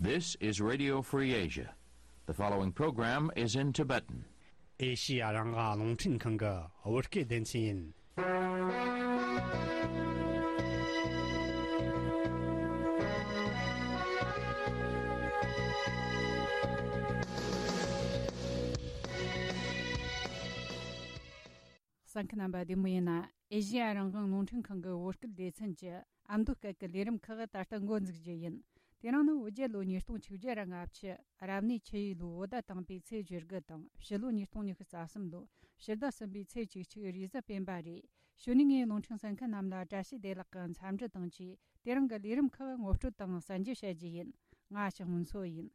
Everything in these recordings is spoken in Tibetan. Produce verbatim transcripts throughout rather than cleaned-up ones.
This is Radio Free Asia. The following program is in Tibetan. ཨེ་ཤི་ཡ་རང་དབང་རླུང་འཕྲིན་ཁང་གི་བོད་སྐད་སྡེ་ཚན་ཡིན། གསན་མཁན་རྣམ་པ་བདེ་མོ་ཡིན་ན། ཨེ་ཤི་ཡ་རང་དབང་རླུང་འཕྲིན་ཁང་གི་བོད་སྐད་སྡེ་ཚན་གྱི་ཨ་མདོ་སྐད་ཀྱི་ལས་རིམ་ཁག་ད་ལྟ་འགོ་འཛུགས་རྒྱུ་ཡིན། དེ་རིང་ནི་བོད་རྒྱལ་ལོ་ཉིས་སྟོང་ཆིག་བརྒྱ་ར་ལྔ་བཅུ། རབ་གནས་ཆུ་ཡོས་ལོའི་བོད་ཟླ་དང་པོའི་ཚེས་བཅུ་དགུ་དང་། ཕྱི་ལོ་ཉིས་སྟོང་ཉི་ཤུ་རྩ་གསུམ་ལོའི་ཕྱི་ཟླ་གསུམ་པའི་ཚེས་བཅུ་གཅིག་རེས་གཟའ་སྤེན་པ་རེད། གཞུག་ནས་ངས་རླུང་འཕྲིན་གསན་མཁན་རྣམས་ལ་བཀྲ་ཤིས་བདེ་ལེགས་ཀྱི་འཚམས་འདྲི་དང་བཅས། དེ་རིང་གི་ལས་རིམ་ཁག་ངོ་སྤྲོད་དང་གསན་རྒྱུ་བྱ་རྒྱུ་ཡིན། ང་ཞག་སྔོན་འཚོ་ཡིན།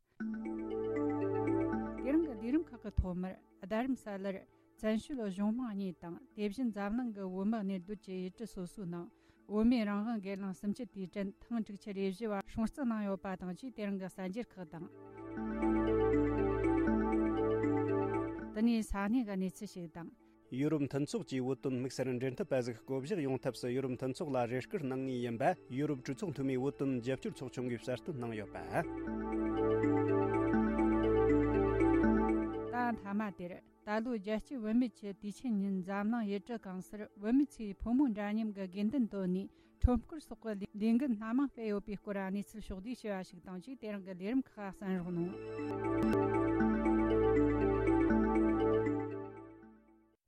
དེ་རིང་གི་ལས་རིམ་ཁག་གི་ཐོག་མར། རྡ་རམ་ས་ལར་བཙན་བྱོལ་གཞུང་མང་གཉིས་དང་། དེ་བཞིན་འཛམ་གླིང་གི་བོད་མི་གནས་སྡོད་ཀྱི་ཡུལ་གྲུ་སོ་སོའི་ནང་བོད་མིའི་རང་དབང་སྒེར་ལངས་གསུམ་བཅུ་དུས་དྲན་ཐེངས་དྲུག་ཅུ་རེ་བཞི་བ་སྲུང་བརྩི་གནང་ཡོད་པ་དང་བཅས། དེ་རིང་གི་གསར་འགྱུར་ཁག་དང་། དེ་ནས་ས་གནས་ཀྱི་གནས་ཚུལ་ཞིག་དང་། ཡུ་རོབ་མཐུན་ཚོགས་ཀྱིས་བོད་དོན་དམིགས་བསལ་འབྲེལ་མཐུད་པ་ཟིག་བསྐོ་གཞག་ཡོང་ཐབས་སུ། ཡུ་རོབ་མཐུན་ཚོགས་ལ་རེ་སྐུལ་གནང་ངེས་ཡིན་པ་ཡུ་རོབ་གྲོས་ཚོགས་འཐུས་མིའི་བོད་དོན་རྒྱབ་སྐྱོར་ཚོགས་ཆུང་གིས་གསལ་སྟོན་གནང་ཡོད་པ། ད་མཐའ་མ་དེར། ད་ལོའི་རྒྱལ་སྤྱིའི་བུད་མེད་ཀྱི་དུས་ཆེན་ཉིན། འཛམ་གླིང་ཡུལ་གྲུ་གང་སར་བུད་མེད་ཚོས་ཕོ་མོ་འདྲ་མཉམ་གྱི་དགོས་འདུན་བཏོན་ནས་ཁྲོམ་སྐོར་སོགས་ཀྱི་ལས་འགུལ་སྣ་མང་སྤེལ་ཡོད་པའི་སྐོར་གནས་ཚུལ་ཕྱོགས་བསྡུས་བྱས་པ་ཞིག་དང་བཅས། དེ་རིང་གི་ལས་རིམ་ཁག་གསན་རོགས་གནང་།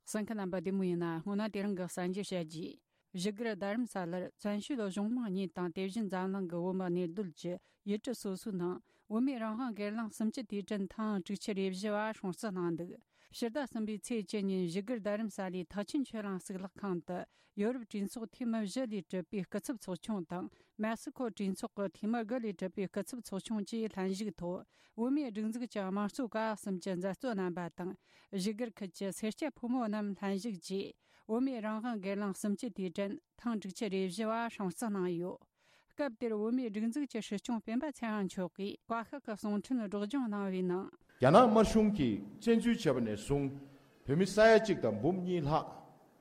གསན་མཁན་རྣམ་པ་བདེ་མོ་ཡིན་ན། སྔོན་ན་དེ་རིང་གི་གསར་འགྱུར་བཤད་རྒྱུ། བཞུགས་སྒར་རྡ་རམ་ས་ལར་བཙན་བྱོལ་གཞུང་མང་གཉིས་དང་། དེ་བཞིན་འཛམ་གླིང་གི་བོད་མི་གནས་སྡོད་ཀྱི་ཡུལ་གྲུ་སོ་སོའི་ནང་བོད་མིའི་རང་དབང་སྒེར་ལངས་གསུམ་བཅུ་དུས་དྲན་ཐེངས་དྲུག་ཅུ་རེ་བཞི་བ་སྲུང་བརྩི་གནང་འདུག། ཕྱི་ཟླ་གསུམ་པའི་ཚེས་བཅུ་ཉིན་བཞུགས་སྒར་རྡ་རམ་ས་ལའི་ཐེག་ཆེན་ཆོས་གླིང་གཙུག་ལག་ཁང་དུ། ཡོ་རོབ་གྲོས་ཚོགས་འཐུས་མི་བཞི་ལས་གྲུབ་པའི་སྐུ་ཚབ་ཚོགས་ཆུང་དང་། མེག་སི་ཁོ་གྲོས་ཚོགས་ཀྱི་འཐུས་མི་དགུ་ལས་གྲུབ་པའི་སྐུ་ཚབ་ཚོགས་ཆུང་བཅས་ལྷན་ཞུགས་ཐོག་བོད་མིའི་སྒྲིག་འཛུགས་ཀྱི་དམངས་གཙོ་ཀ་བ་གསུམ་གྱི་མཛད་གཙོ་རྣམ་པ་དང་། བཞུགས་སྒར་ཁུལ་གྱི་སེར་སྐྱ་ཕོ་མོ་རྣམས་ལྷན་ཞུགས་ཀྱིས། བོད་མིའི་རང་དབང་སྒེར་ལངས་གསུམ་བཅུ་དུས་དྲན་ཐེངས་དྲུག་ཅུ་རེ་བཞི་བ་སྲུང་བརྩི་གནང་ཡོད། སྐབས་དེར་བོད་མིའི་སྒྲིག་འཛུགས་ཀྱི་སྲིད་སྐྱོང་སྤེན་པ་ཚེ་དབང་མཆོག་གིས་བཀའ་ཤག་གི་གསུང་འཕྲིན་སྒྲོག་སྦྱང་གནང་བའི་ནང་། རྒྱ་ནག་དམར་གཞུང་གིས་བཙན་འཛུལ་བྱས་པ་ནས་བཟུང་། བོད་མི་ས་ཡ་གཅིག་དང་འབུམ་གཉིས་ལྷག་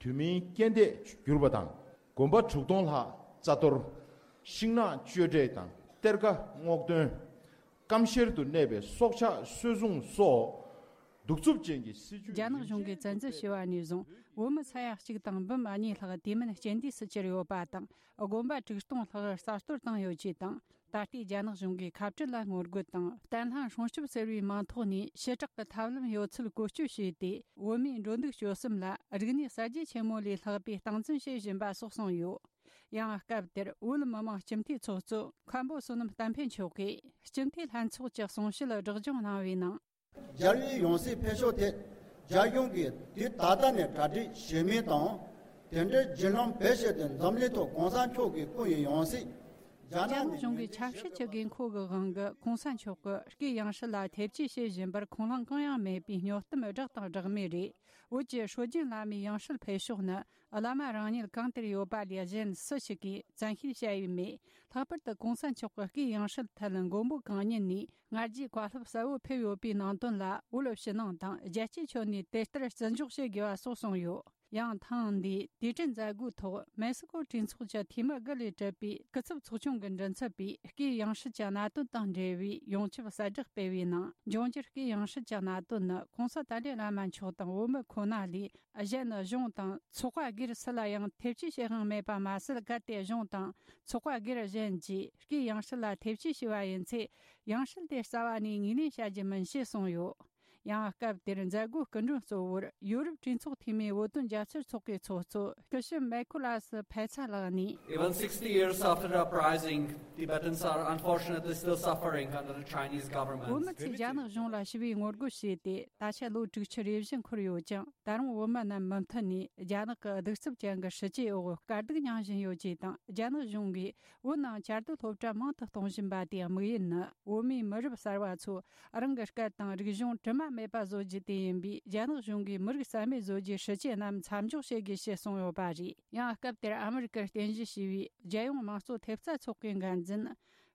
དུས་མིན་རྐྱེན་འདས་གྱུར་པ་དང་། དགོན་པ་དྲུག་སྟོང་ལྷག་རྩ་གཏོར། ཤིང་ནགས་གཅོད་འབྲེག་དང་གཏེར་ཁ་སྔོག་འདོན། སྐམ་ཤེར་དུ་གནས་པའི་སྲོག་ཆགས་སོད་སྲུང་སོགས་གདུག་རྩུབ་ཅན་གྱི་སྲིད་བྱུས། རྒྱ་ནག་གཞུང་གིས་བཙན་འཛུལ་བྱས་པ་ནས་བཟུང་བོད་མི་ས་ཡ་གཅིག་དང་འབུམ་གཉིས་ལྷག་དུས་མིན་རྐྱེན་འདས་སུ་གྱུར་ཡོད་པ་དང་། དགོན་པ་དྲུག་སྟོང་ལྷག་རྩ་གཏོར་བཏང་ཡོད་ཅེས་དང་། ད་ལྟའི་རྒྱ་ནག་གཞུང་གིས་ཁ་བྲལ་ལ་ངོ་རྒོལ་དང་བརྟན་ལྷིང་སྲུང་སྐྱོབ་ཟེར་བའི་མིང་ཐོག་ནས་ཞི་དྲག་གི་ཐབས་ལམ་ཡོད་ཚུལ་བཀོལ་སྤྱོད་བྱས་ཏེ། བོད་མིའི་འགྲོ་འདུག་སྤྱོད་གསུམ་ལ་རིག་གནས་གསར་བརྗེ་ཆེན་མོ་ལས་ལྷག་པའི་སྟངས་འཛིན་བྱེད་བཞིན་པ་སོགས་གསུངས་ཡོད། ཡང་སྐབས་དེར་བོད་མི་མང་སྤྱི་འཐུས་ཚོགས་གཙོ་མཁན་པོ་བསོད་ནམས་བསྟན་འཕེལ་མཆོག་གིས། སྤྱི་འཐུས་ལྷན་ཚོགས་ཀྱི་གསུང་བཤད་སྒྲོག་སྦྱང་གནང་བའི་ནང་། རྒྱལ་བའི་ཡང་སྲིད་འཕེལ་ཕྱོགས་ཐད་རྒྱ་གཞུང་གིས་དུས་ད་ལྟ་ནས་གྲ་སྒྲིག་བྱེད་མུས་དང་། དེ་འབྲེལ་བརྒྱུད་ལམ་བེད་སྤྱད་དེ་འཛམ་གླིང་ཐོག་གོང་ས་མཆོག་གི་སྐུ་ཡི་ཡང་སྲིད། རྒྱ་ནག་གཞུང་གི་ཆབ་སྲིད་ཀྱི་དགོས་མཁོ་གི་དབང་གིས་གོང་ས་མཆོག་གི་སྐུའི་ཡང་སྲིད་ལ་ཐེ་བྱུས་བྱེད་བཞིན་པར་ཁུངས་ལུང་གང་ཡང་མེད་པའི་སྨྱོ་གཏམ་སྦྲགས་དང་སྦྲགས་མེད་རེད། བོད་ཀྱི་སྲོལ་རྒྱུན་བླ་མའི་ཡང་སྲིད་འཕེལ་ཕྱོགས་ནི། བླ་མ་རང་ཉིད་གང་དེར་ཡོད་པ་ལས་གཞན་སུ་ཞིག་གིས་བཙན་ཤེད་བྱ་ཡུལ་མེད། ལྷག་པར་དུ་གོང་ས་མཆོག་གི་སྐུའི་ཡང་སྲིད་ཐད་མགོན་པོ་གང་ཉིད་ནས་སྔར་རྗེས་བཀའ་སློབ་གསལ་བོ་ཕེབས་ཡོད་པའི་ནང་དོན་ལ། བོད་ཕྱི་ནང་དང་རྒྱལ་སྤྱིའི་ཁྱོན་ནས་དེ་ལྟར་བརྩི་འཇོག་བྱེད་དགོས་པ་སོགས་གསུངས་ཡོད། ཡང་ཐེངས་འདིའི་དུས་དྲན་མཛད་སྒོའི་ཐོག་མེག་སི་ཀོ་གྲོས་ཚོགས་ཀྱི་འཐུས་མི་དགུ་ལས་གྲུབ་པའི་སྐུ་ཚབ་ཚོགས་ཆུང་གི་མགྲིན་ཚབ་པས། སྐུའི་ཡང་སྲིད་ཀྱི་གནད་དོན་དང་འབྲེལ་བའི་ཡོངས་ཁྱབ་གསལ་བསྒྲགས་སྤེལ་བའི་ནང་། འབྱུང་འགྱུར་སྐུའི་ཡང་སྲིད་ཀྱི་གནད་དོན་ནི། གོང་ས་ཏཱ་ལའི་བླ་མ་མཆོག་དང་བོད་མི་ཁོ་ན་ལས། གཞན་གཞུང་དང་ཚོགས་པ་སྒེར་སུ་ལ་ཡང་ཐེ་བྱུས་བྱེད་དབང་མེད་པ་མ་ཟད། གལ་ཏེ་གཞུང་དང་ཚོགས་པ་སྒེར་གཞན་གྱིས་སྐུའི་ཡང་སྲིད་ལ་ཐེ་བྱུས་བྱས་པ་ཡིན་ཚེ། ཡང་སྲིད་དེ་རྩ་བ་ནས་ངོས་ལེན་བྱ་རྒྱུ་མིན་ཞེས་གསུངས་ཡོད། ཡང་སྐབས་དེར་མཛད་སྒོའི་སྐུ་མགྲོན་གཙོ་བོར་ཡོ་རོབ་གྲོས་ཚོགས་འཐུས་མིའི་བོད་དོན་རྒྱབ་སྐྱོར་ཚོགས་པའི་ཚོགས་གཙོ་སྐུ་ཞབས་མེ་ཁོ་ལ་སི་ཕེ་ཚ་ལགས་ནས། Even sixty years after the uprising, Tibetans are unfortunately still suffering under the Chinese government. བོད་མི་ཚོས་རྒྱ་ནག་གཞུང་ལ་ཞི་བའི་ངོ་རྒོལ་བྱས་ཏེ། ད་ཆ་ལོ་དྲུག་ཅུ་རེ་བཞི་འཁོར་ཡོད་ཀྱང་། ད་རུང་བོད་མི་རྣམས་མུ་མཐུད་ནས་རྒྱ་ནག་གི་གདུག་རྩུབ་ཅན་གྱི་སྲིད་བྱུས་འོག་དཀའ་སྡུག་མྱངས་བཞིན་ཡོད་ཅེས་དང་། རྒྱ་ནག་གཞུང་གིས་བོད་ནང་བཅའ་སྡོད་སློབ་གྲྭ་མང་དུ་གཏོང་བཞིན་པ་དེའི་དམིགས་ཡུལ་ནི། བོད་མིའི་མི་རབས་གསར་བ་ཚོ་རང་གི་སྐད་དང་རིག་གཞུང་དྲི་མ་མེད་པ་བཟོ་རྒྱུ་དེ་ཡིན་པས། རྒྱ་ནག་གཞུང་གིས་མི་རིགས་རྩ་མེད་བཟོ་རྒྱུའི་སྲིད་བྱུས་རྣམས་མཚམས་འཇོག་བྱེད་དགོས་ཞེས་གསུངས་ཡོད་པ་རེད། ཡང་སྐབས་དེར་ཨ་མི་རི་ཀར་རྟེན་གཞི་བྱས་པའི་རྒྱལ་ཡོངས་དམངས་གཙོ་ཐེབས་རྩ་ཚོགས་པའི་འགན་འཛིན་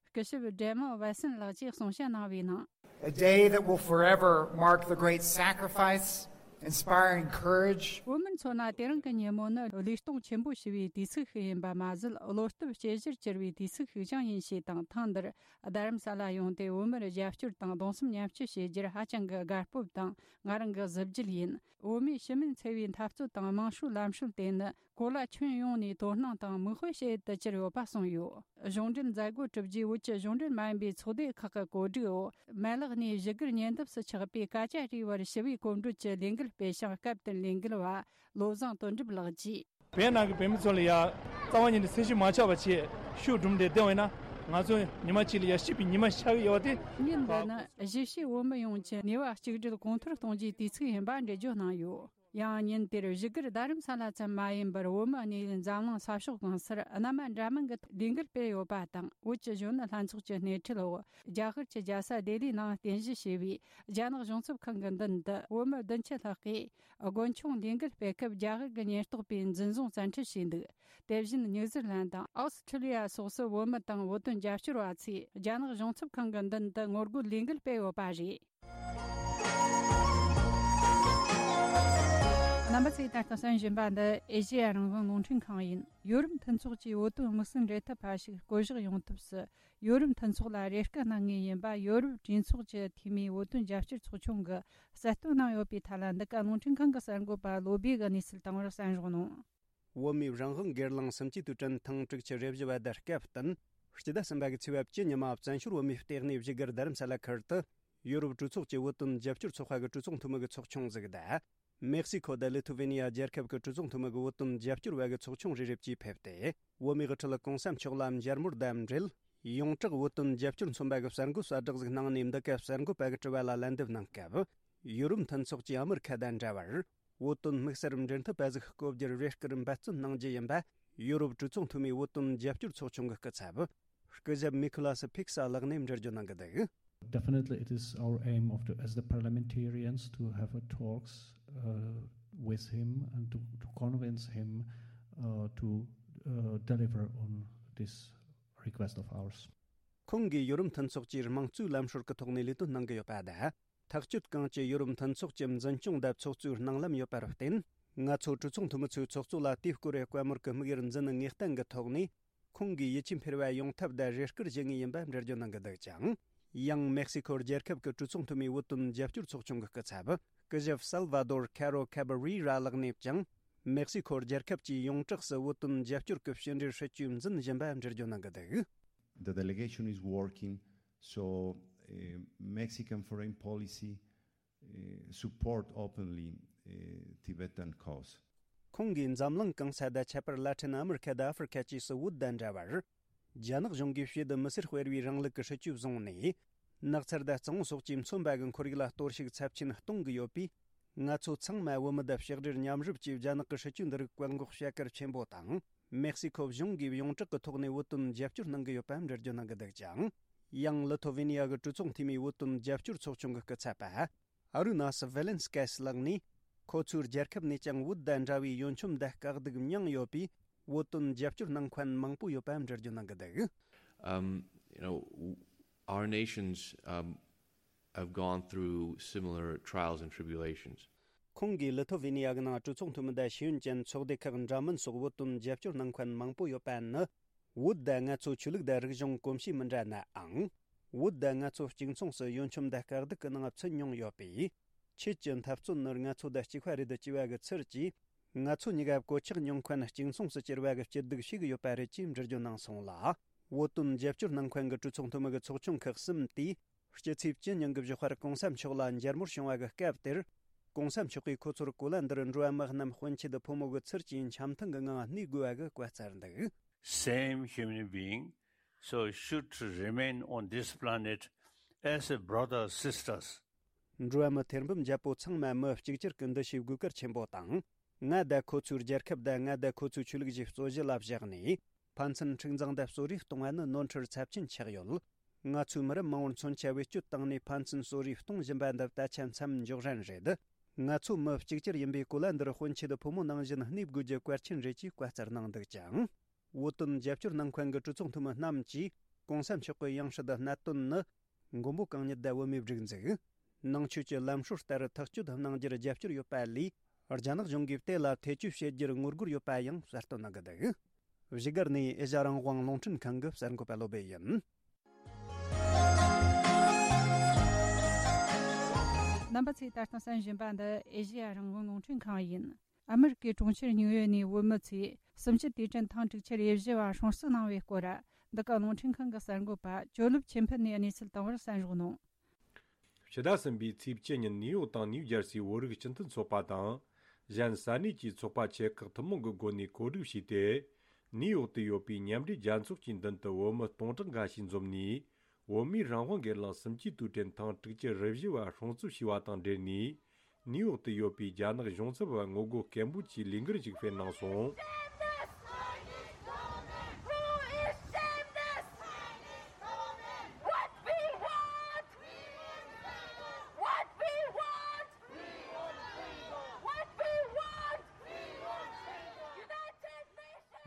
སྐུ་ཞབས་ཌེ་མོ་ཝེ་སན་ལགས་ཀྱིས་གསུང་བཤད་གནང་བའི་ནང་། A day that will forever mark the great sacrifice Inspiring courage. བོད་མི་ཚོ་ན་དེ་རིང་གི་ཉིན་མོ་ནི་བློས་གཏོང་ཆེན་པོ་ཞུ་བའི་དུས་ཚིགས་ཤིག་ཡིན་པ་མ་ཟད། བློ་སྟོབས་ཇེ་ཆེར་གྱུར་བའི་དུས་ཚིགས་ཤིག་ཀྱང་ཡིན་ཞེས་དང་། ཐེངས་འདིར་རྡ་རམ་ས་ལ་ཡོང་སྟེ་བོད་མིར་རྒྱབ་སྐྱོར་དང་གདུང་སེམས་མཉམ་སྐྱེད་བྱེད་རྒྱུར་ཧ་ཅང་གི་དགའ་སྤོབས་དང་། ང་རང་གི་གཟི་བརྗིད་ཡིན། བོད་མིའི་ཕྱི་མིན་འཚེ་བའི་འཐབ་རྩོད་དང་དམངས་ཧྲུའུ་ལམ་སྲོལ་དེ་ནི་གོ་ལ་ཁྱོན་ཡོངས་ནས་དོ་སྣང་དང་མིག་དཔེ་བྱེད་དུ་གྱུར་ཡོད་པ་གསུངས་ཡོད། གཞུང་འབྲེལ་མཛད་སྒོ་གྲུབ་རྗེས་བོད་ཀྱི་གཞུང་འབྲེལ་མ་ཡིན་པའི་ཚོགས་སྡེ་ཁག་གི་གོ་སྒྲིག་འོག་མ་ལག་ནས་བཞུགས་སྒར་ཉེ་འདབས་སུ་ཆགས་པའི་ཀ་ཅ་རི་བར་ཞི་བའི་གོམ་བགྲོད་ཀྱི་ལས་འགུལ་སྤེལ་ཞིང་། སྐབས་དེར་ལས་འགུལ་བ་བློ་བཟང་དོན་གྲུབ་ལགས་ཀྱིས། བོད་ནང་གི་བོད་མི་ཚོ་ལ་ཡ་རྩ་བ་ཉིད་ནས་སེམས་ཤུགས་མ་ཆག་པ་བྱས་ཤུགས་སྒྲིམ་སྟེ་བསྡད་པ་ཡིན་ན། ང་ཚོ་ཉི་མ་གཅིག་ལ་ཡ་སྐྱིད་པའི་ཉི་མ་ཤར་གི་ཡོད་པ་དེ། ཉིན་འདི་ནི་གཞིས་བྱེས་བོད་མི་ཡོངས་ཀྱི་ནུས་པ་གཅིག་སྒྲིལ་གོང་མཐོར་གཏོང་རྒྱུའི་དུས་ཚིགས་ཡིན་པ་འགྲེལ་བརྗོད་གནང་ཡོད། ཡང་ཉིན་དེར་བཞུགས་སྒར་རྡ་རམ་ས་ལ་ཙམ་མ་ཡིན་པར་བོད་མི་གནས་ཡུལ་འཛམ་གླིང་ས་ཕྱོགས་གང་སར་རྣམ་པ་འདྲ་མིན་གྱི་ལས་འགུལ་སྤེལ་ཡོད་པ་དང་། བོད་ཀྱི་གཞོན་ནུ་ལྷན་ཚོགས་ཀྱི་སྣེ་ཁྲིད་འོག་རྒྱ་གར་གྱི་རྒྱལ་ས་ལྡི་ལིའི་ནང་རྟེན་གཞི་བྱས་པའི་རྒྱ་ནག་གཞུང་ཚབ་ཁང་གི་མདུན་དུ་བོད་མི་བདུན་ཅུ་ལྷག་གིས་དགུན་ཆུང་ལས་འགུལ་སྤེལ་སྐབས་རྒྱ་གར་གྱི་ཉེན་རྟོག་པས་འཛིན་བཟུང་བཙན་ཁྲིད་བྱས་འདུག་དེ་བཞིན་ནིའུ་ཛི་ལན་དང་ཨོ་སི་ཁྲི་ལི་ཡ་སོགས་སུ་བོད་མི་དང་བོད་དོན་རྒྱབ་སྐྱོར་བ་ཚོས་རྒྱ་ནག་གཞུང་ཚབ་ཁང་གི་མདུན་དུ་ངོ་རྒོལ་ལས་འགུལ་སྤེལ་ཡོད་པ་རེད། རྣམ་པ་ཚོས་ད་ལྟ་གསན་བཞིན་པ་འདི་ཨེ་ཤེ་ཡ་རང་དབང་རླུང་འཕྲིན་ཁང་ཡིན། ཡོ་རོབ་མཐུན་ཚོགས་ཀྱིས་བོད་དོན་དམིགས་བསལ་འབྲེལ་མཐུད་པ་ཞིག་བསྐོ་གཞག་ཡོང་ཐབས་སུ། ཡོ་རོབ་མཐུན་ཚོགས་ལ་རེ་སྐུལ་གནང་ངེས་ཡིན་པ་ཡོ་རོབ་གྲོས་ཚོགས་ཀྱི་འཐུས་མིའི་བོད་དོན་རྒྱབ་སྐྱོར་ཚོགས་ཆུང་གིས་གསལ་སྟོན་གནང་ཡོད་པའི་ཐད་ལ། འདི་ག་རླུང་འཕྲིན་ཁང་གི་གསར་འགོད་པ་བློ་བྷེ་གིས་གནས་ཚུལ་བཏང་བར་གསན་རོགས་གནང་། བོད་མིའི་རང་དབང་སྒེར་ལངས་སུམ་ཅུའི་དུས་དྲན་ཐེངས་དྲུག་ཅུ་རེ་བཞི་བ་དེ་སྐབས་བསྟུན། སྤྱི་ཟླ་གསུམ་པ་གི་ཚེས་པ་བཅུ་ཉི་མ་བཙན་བྱོལ་བོད་མིའི་ལྟེ་གནས་བཞུགས་སྒར་རྡ་རམ་ས་ལ་ཁུལ་དུ། ཡོ་རོབ་གྲོས་ཚོགས་ཀྱི་བོད་དོན་རྒྱབ་སྐྱོར་ཚོགས་པ་གི་གྲོས་ཚོགས་འཐུས་མི་གི་ཚོགས་ཆུང་ཟིག་དང་། མེག་སི་ཁོ་དང་ལི་ཐུ་ཝེ་ནི་ཡ་རྒྱལ་ཁབ་ཀྱི་གྲོས་ཚོགས་འཐུས་མི་གི་བོད་དོན་རྒྱབ་སྐྱོར་བ་གི་ཚོགས་ཆུང་རེ་རེ་བཅས་ཕེབས་ཏེ། བོད་མིའི་དབུ་ཁྲིད་གོང་ས་མཆོག་ལ་མཇལ་མོལ་དང་འབྲེལ། ཡོངས་གྲགས་བོད་དོན་རྒྱབ་སྐྱོར་མཚོན་པ་གི་གསར་འགོད་གསལ་བསྒྲགས་ཟིག་གནང་ནས། འདི་ག་གསར་འགོད་པ་གི་དྲི་བ་ལ་ལན་འདེབས་གནང་སྐབས། ཡོ་རོབ་མཐུན་ཚོགས་ཀྱིས་ཨ་མི་རི་ཁ་དང་འདྲ་བར། བོད་དོན་དམིགས་བསལ་འབྲེལ་མཐུད་པ་ཟིག་བསྐོ་རྒྱུར་རེ་སྐུལ་འབད་བརྩོན་གནང་རྒྱུ་ཡིན་པ། ཡོ་རོབ་གྲོས་ཚོགས་འཐུས་མིའི་བོད་དོན་རྒྱབ་སྐྱོར་ཚོགས་ཆུང་གི་སྐུ་ཚབ། སྐུ་ཞབས་མི་ཁོ་ལ་སི་ཕིག་ས་ལགས་ནས་འགྲེལ་བརྗོད་གནང་གི་འདུག Definitely, it is our aim of the, as the parliamentarians, to have a talks uh, with him and to, to convince him uh, to uh, deliver on this request of ours. ཁོང་གིས་ཡོ་རོབ་མཐུན་ཚོགས་ཀྱི་དམངས་གཙོའི་ལམ་སྲོལ་གྱི་ཐོག་ནས་ལས་དོན་གནང་གི་ཡོད་པ་དང་། ཐག་གཅོད་གང་ཅི་ཡོ་རོབ་མཐུན་ཚོགས་ཀྱི་འཛིན་སྐྱོང་དང་ཚོགས་གཙོའི་སྣང་ལམ་ཡོད་པར་བརྟེན། ང་ཚོ་གྲོས་ཚོགས་འཐུས་མི་ཚོའི་ཚོགས་གཙོ་ལ་དེའི་སྐོར་བཀའ་མོལ་གྱི་དམིགས་ཡུལ་འཛིན་ངེས་གཏན་གྱི་ཐོག་ནས། ཁོང་གིས་ཡིད་ཆེས་འཕེར་བ་ཡོང་ཐབས་དང་རེ་སྐུལ་བྱེད་ངེས་ཡིན་པ་འགྲེལ་བརྗོད་གནང་གི་འདུག་ཅིང་། ཡང་མེག་སི་ཁོ་རྒྱལ་ཁབ་ཀྱི་གྲོས་ཚོགས་འཐུས་མིའི་བོད་དོན་རྒྱབ་སྐྱོར་ཚོགས་ཆུང་གི་སྐུ་ཚབ། སྐུ་ཞབས་སལ་ཝ་དོར་ཁ་རོ་ཁ་བ་རི་ར་ལགས་ནས་ཀྱང་། མེག་སི་ཁོ་རྒྱལ་ཁབ་ཀྱིས་ཡོངས་གྲགས་སུ་བོད་དོན་རྒྱབ་སྐྱོར་གྱི་ཕྱི་འབྲེལ་སྲིད་ཇུས་འཛིན་བཞིན་པ་འགྲེལ་བརྗོད་གནང་གི་འདུག The delegation is working, so uh, Mexican foreign policy uh, support openly uh, Tibetan cause. ཁོང་གིས་འཛམ་གླིང་གང་ས་དང་ཁྱད་པར་ལ་ཊིན་ཨ་མི་རི་ཁ་དང་ཨ་ཧྥེ་རི་ཁ་བཅས་སུ་བོད་དང་འདྲ་བར། རྒྱ་ནག་གཞུང་གིས་ཕྱེད་དུ་མི་སེར་སྤེལ་བའི་རིང་ལུགས་ཀྱི་སྲིད་ཇུས་བཟུང་ནས། ནགས་ཚལ་དང་གཙང་བོ་སོགས་ཀྱིས་མཚོན་པ་གི་ཁོར་ཡུག་ལ་གཏོར་བཤིག་ཚབས་ཆེན་གཏོང་གི་ཡོད་པས། ང་ཚོ་ཚང་མ་བོད་མི་དང་ཕྱག་སྦྲེལ་མཉམ་རུབ་ཀྱིས་རྒྱ་ནག་གི་སྲིད་ཇུས་འདི་རིགས་བཀག་འགོག་བྱ་གལ་ཆེན་པོ་དང་། མེག་སི་ཁོ་གཞུང་གིས་ཡོངས་གྲགས་ཀྱི་ཐོག་ནས་བོད་དོན་རྒྱབ་སྐྱོར་གནང་གི་ཡོད་པ་འགྲེལ་བརྗོད་གནང་གི་འདུག་ཅིང་། ཡང་ལི་ཐོ་ཝེ་ནི་ཡ་གི་གྲོས་ཚོགས་འཐུས་མིའི་བོད་དོན་རྒྱབ་སྐྱོར་ཚོགས་ཆུང་གི་སྐུ་ཚབ་པ། ཨ་རུ་ན་སི་ཝེ་ལེན་སི་ཀེ་སི་ལགས་ནས། ཁོ་ཚོའི་རྒྱལ་ཁབ་ནས་ཀྱང་བོད་དང་འདྲ་བའི་ཡོན་ཆོམ་དང་དཀའ་སྡུག་མྱངས་ཡོད་པས། བོད་དོན་རྒྱབ་སྐྱོར་གནང་མཁན་མང་པོ་ཡོད་པ་འགྲེལ་བརྗོད་གནང་གི་འདུག Um, you know, w- our nations um, have gone through similar trials and tribulations. ཁོང་གིས་ལི་ཐོ་ཝེ་ནི་ཡ་གི་ནང་གྲོས་ཚོགས་འཐུས་མི་དང་ཤེས་ཡོན་ཅན་ཚོགས་སྡེ་ཁག་འདྲ་མིན་སོགས་བོད་དོན་རྒྱབ་སྐྱོར་གནང་མཁན་མང་པོ་ཡོད་པ་ནི། བོད་དང་ང་ཚོ་ཆོས་ལུགས་དང་རིག་གཞུང་གོམས་གཤིས་མི་འདྲ་ནའང་། བོད་དང་ང་ཚོ་གཅིག་མཚུངས་སུ་ཡོན་ཆོམ་དང་དཀའ་སྡུག་གི་ནང་ཚུད་མྱོང་ཡོད་པས། ཁྱེད་ཀྱི་འཐབ་རྩོད་ནི་ང་ཚོ་དང་གཅིག་པ་རེད་ཅེས་པ་གི་ཚུལ་གྱིས། ང་ཚོ་གཉིས་ཀ་གོད་ཆག་མྱོང་མཁན་གཅིག་མཚུངས་སུ་གྱུར་པ་གི་སྐྱིད་སྡུག་ཤེས་ཀྱི་ཡོད་པ་རེད་ཅེས་འགྲེལ་བརྗོད་གནང་སོང་ལ། བོད་དོན་རྒྱབ་སྐྱོར་གནང་མཁན་གྱི་གྲོས་ཚོགས་འཐུས་མི་གི་ཚོགས་ཆུང་ཁག་གསུམ་དེས། སྤྱི་ཚེས་བཅུ་ཉིན་གྱི་བཞུགས་སྒར་གོང་ས་མཆོག་ལ་མཇལ་མོལ་བྱུང་བ་གི་སྐབས་དེར། གོང་ས་མཆོག་གིས་ཁོ་ཚོར་གོ་ལ་འདིར་འགྲོ་བ་མི་རྣམས་དཔོན་ཆེད་དུ་ཕོ་མོ་གི་ཚུལ་གྱིས་འཆམ་མཐུན་གྱི་ངང་གནས་དགོས་པ་གི་བཀའ་སྩལ་འདུག Same human being, so should remain on this planet as a brother sisters. འགྲོ་བ་མི་ཐེར་འབུམ་བརྒྱད་པོ་ཚང་མ་མི་གཅིག་གྱུར་གྱི་འདུ་ཤེས་དགོས་གལ་ཆེན་པོ་དང་། ང་དང་ཁོ་ཚོའི་རྒྱལ་ཁབ་དང་ང་དང་ཁོ་ཚོའི་ཆོས་ལུགས་ཀྱི་རྩོད་གཞི་ལ་བཞག་ནས། ཕན་ཚུན་འཁྲུག་འཛིང་དང་གསོད་རེས་གཏོང་བ་ནི་ནོར་འཁྲུལ་ཚབས་ཆེན་ཆགས་ཡོད། ང་ཚོའི་མི་རབས་མང་བོར་མཚོན་ཆ་བེད་སྤྱོད་བཏང་ནས་ཕན་ཚུན་གསོད་རེས་གཏོང་བཞིན་པ་འདི་ད་ཆ་མཚམས་འཇོག་རན་རེད། ང་ཚོ་མི་གཅིག་གྱུར་ཡིན་པས་གོ་ལ་འདིར་དཔོན་ཆེད་དུ་ཕོ་མོ་ནང་བཞིན་གནས་དགོས་རྒྱུ་གལ་ཆེན་རེད་ཅེས་བཀའ་སྩལ་གནང་འདུག་ཅིང་། བོད་དོན་རྒྱབ་སྐྱོར་གནང་མཁན་གྱི་གྲོས་ཚོགས་འཐུས་མི་རྣམས་ཀྱིས་གོང་ས་མཆོག་གི་ཡང་སྲིད་གནད་དོན་ནི། མགོན་པོ་གང་ཉིད་དང་བོད་མིའི་སྒྲིག་འཛུགས། ནང་ཆོས་ཀྱི་ལམ་སྲོལ་ལྟར་ཐག་གཅོད་གནང་རྒྱུར་རྒྱབ་སྐྱོར་ཡོད་པ་ལས། རྒྱ་ནག་གཞུང་གིས་དེ་ལ་ཐེ་བྱུས་བྱེད་རྒྱུར་ངོ་རྒོལ་ཡོད་པ་ཡང་གསལ་སྟོན་གནང་གི་འདུག། བཞུགས་སྒར་ནས་ཨེ་ཤ་རང་དབང་རླུང་འཕྲིན་ཁང་གི་གསར་འགོད་པ་བློ་བྷེ་ཡིན། རྣམ་པ་ཚོས་ད་ལྟ་གསན་བཞིན་པ་འདི་ཨེ་ཤེ་ཡ་རང་དབང་རླུང་འཕྲིན་ཁང་ཡིན། ཨ་མི་རི་ཀའི་གྲོང་ཁྱེར་ཉིའུ་ཡོག་ནས་བོད་མི་ཚོས་གསུམ་བཅུའི་དུས་དྲན་ཐེངས་དྲུག་ཅུ་རེ་བཞི་བ་སྲུང་བརྩི་གནང་བའི་སྐོར། འདི་ག་རླུང་འཕྲིན་ཁང་གི་གསར་འགོད་པ་ཇོ་ལུབ་ཆོས་འཕེལ་ནས་གནས་ཚུལ་བཏང་བར་གསན་རོགས་གནང་། ཕྱི་ཟླ་གསུམ་པའི་ཚེས་བཅུ་ཉིན་ནིའུ་ཡོག་དང་ནིའུ་ཇར་སིའི་བོད་རིགས་སྤྱི་མཐུན་ཚོགས་པ་དང་། གཞན་ས་གནས་ཀྱི་ཚོགས་པ་ཆེ་ཁག་ཐུན་མོང་གི་སྒོ་ནས་གོ་སྒྲིག་བྱས་ཏེ། ནིའུ་ཡོག་ཏུ་ཡོད་པའི་མཉམ་འབྲེལ་རྒྱལ་ཚོགས་ཀྱི་མདུན་དུ་བོད་མི་སྟོང་ཕྲག་འགའ་ཞིག་འཛོམས་ནས། བོད་མིའི་རང་དབང་སྒེར་ལངས་གསུམ་བཅུའི་དུས་དྲན་ཐེངས་དྲུག་ཅུ་རེ་བཞི་བ་སྲུང་བརྩི་ཞུས་པ་དང་འབྲེལ་ནས། ནིའུ་ཡོག་ཏུ་ཡོད་པའི་རྒྱ་ནག་གཞུང་ཚབ་པ་ངོ་རྒོལ་སྐད་འབོད་ཀྱི་ལས་འགུལ་ཞིག་སྤེལ་གནང་སོང་།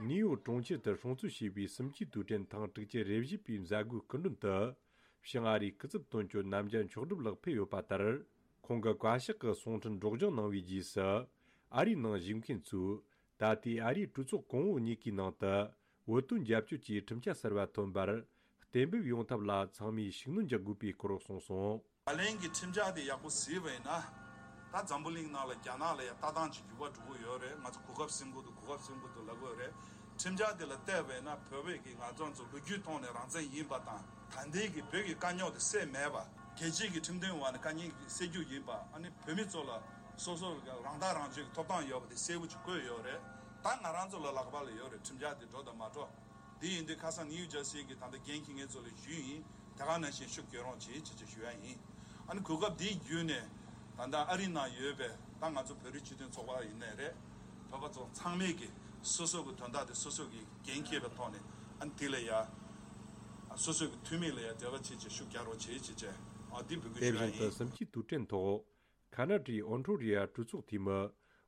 ནིའུ་ཡོག་གྲོང་ཁྱེར་དུ་སྲུང་བརྩི་བྱས་པའི་གསུམ་བཅུའི་དུས་དྲན་ཐེངས་དྲུག་ཅུ་རེ་བཞི་པའི་མཛད་སྒོའི་སྐུ་མགྲོན་དུ། བྱང་ཨ་རིའི་སྐུ་ཚབ་དོན་གཅོད་རྣམ་རྒྱལ་མཆོག་སྒྲུབ་ལགས་ཕེབས་ཡོད་པ་ལྟར། ཁོང་གིས་བཀའ་ཤག་གི་གསུང་འཕྲིན་སྒྲོག་སྦྱང་གནང་བའི་རྗེས་སུ། ཨ་རིའི་ནང་བཞུགས་མཁན་ཚོས། ད་ལྟའི་ཨ་རིའི་གྲོས་ཚོགས་གོང་འོག་གཉིས་ཀའི་ནང་དུ། བོད་དོན་རྒྱབ་སྐྱོར་གྱི་ཁྲིམས་འཆར་གསར་བ་ཐོན་པར། གཏན་འབེབས་ཡོང་ཐབས་ལ་ཚང་མས་ཤུགས་སྣོན་རྒྱག་དགོས་པའི་སྐོར་གསུངས་སོང་། ད་ལན་གྱི་ཁྲིམས་འཆར་དེ་ཡག་པོ་གཟིགས་པ་ཡིན་ན། ད་འཛམ་བུ་གླིང་ནང་ལ་རྒྱ་ནག་ལ་ཡང་ལྟ་སྟངས་ཀྱི་འགྱུར་བ་འགྲོ་གི་ཡོད་རེད། ང་ཚོ་གོ་སྐབས་ཟིན་གི་འདུག་གོ་སྐབས་ཟིན་གི་འདུག་ལབ་གི་ཡོད་རེད། ཁྲིམས་འཆར་དེ་ལ་བལྟས་པ་ཡིན་ན་བོད་པའི་གི་ང་ཚོ་ཚོ་ལོ་རྒྱུས་ཐོག་ནས་རང་བཙན་ཡིན་པ་དང་། ད་ལྟའི་གི་བོད་ཀྱི་དཀའ་རྙོག་དེ་སེལ་མེད་པ། རྒྱལ་སྤྱིའི་གི་ཁྲིམས་དོན་འོག་ནས་དཀའ་ངལ་སེལ་རྒྱུ་ཡིན་པ། ཨ་ནི་བོད་མི་ཚོ་ལ་སོ་སོ་རང་ཐག་རང་གཅོད་ཀྱི་ཐོབ་ཐང་ཡོད་པ་དེ་གསལ་པོ་ཅིག་བཀོད་ཡོད་རེད། ད་ང་རང་ཚོ་ལ་ལག་པ་ལ་ཡོད་རེད། ཁྲིམས་འཆར་དེ་འགྲོ་དང་མ་འགྲོ། དེ་ཡིན་དུས་ཁ་སང་ནིའུ་ཇར་སི་གི་ད་ལྟ་འགན་འཁྱེར་མཁན་ཚོ་ལ་ཞུས་ཡིན། དེ་ག་ནང་བཞིན་ཤུགས་རྒྱག་རོགས་བྱེད་ཅེས་ཅེས་ཞུ་ཡ་ཡིན། ཨ་ནི་གོ་སྐབས་འདི་བརྒྱུད་ནས་ད་ལྟ་ཨ་རི་ནང་ཡོད་པའི་ད་ང་ཚོ་བོད་རིགས་སྤྱི་མཐུན་ཚོགས་པ་ཡིན་ནའི་རེད། བོད་པ་ཚོ་ཚང་མས་ཀྱི་སོ་སོ་གི་དོན་དག་དེ་སོ་སོ་གི་འགན་འཁྱེར་བའི་ཐོག་ནས། ཨ་ནི་དེ་ལ་ཡ་སོ་སོ་གི་འཐུས་མི་ལ་ཡ་འབྲེལ་བ་བྱེད་ཅེས་ཤུགས་རྒྱག་རོགས་བྱེད་ཅེས་བྱས། ཨ་འདི་འབོད་སྐུལ་དེ་ཞུ་ཡ་བཞིན་དུ་ཡིན། གསུམ་བཅུའི་དུས་དྲན་ཐོག་ཁ་ན་ཌའི་ཨོན་ཊོ་རི་ཡ་གྲོས་ཚོགས་འཐུས་མི་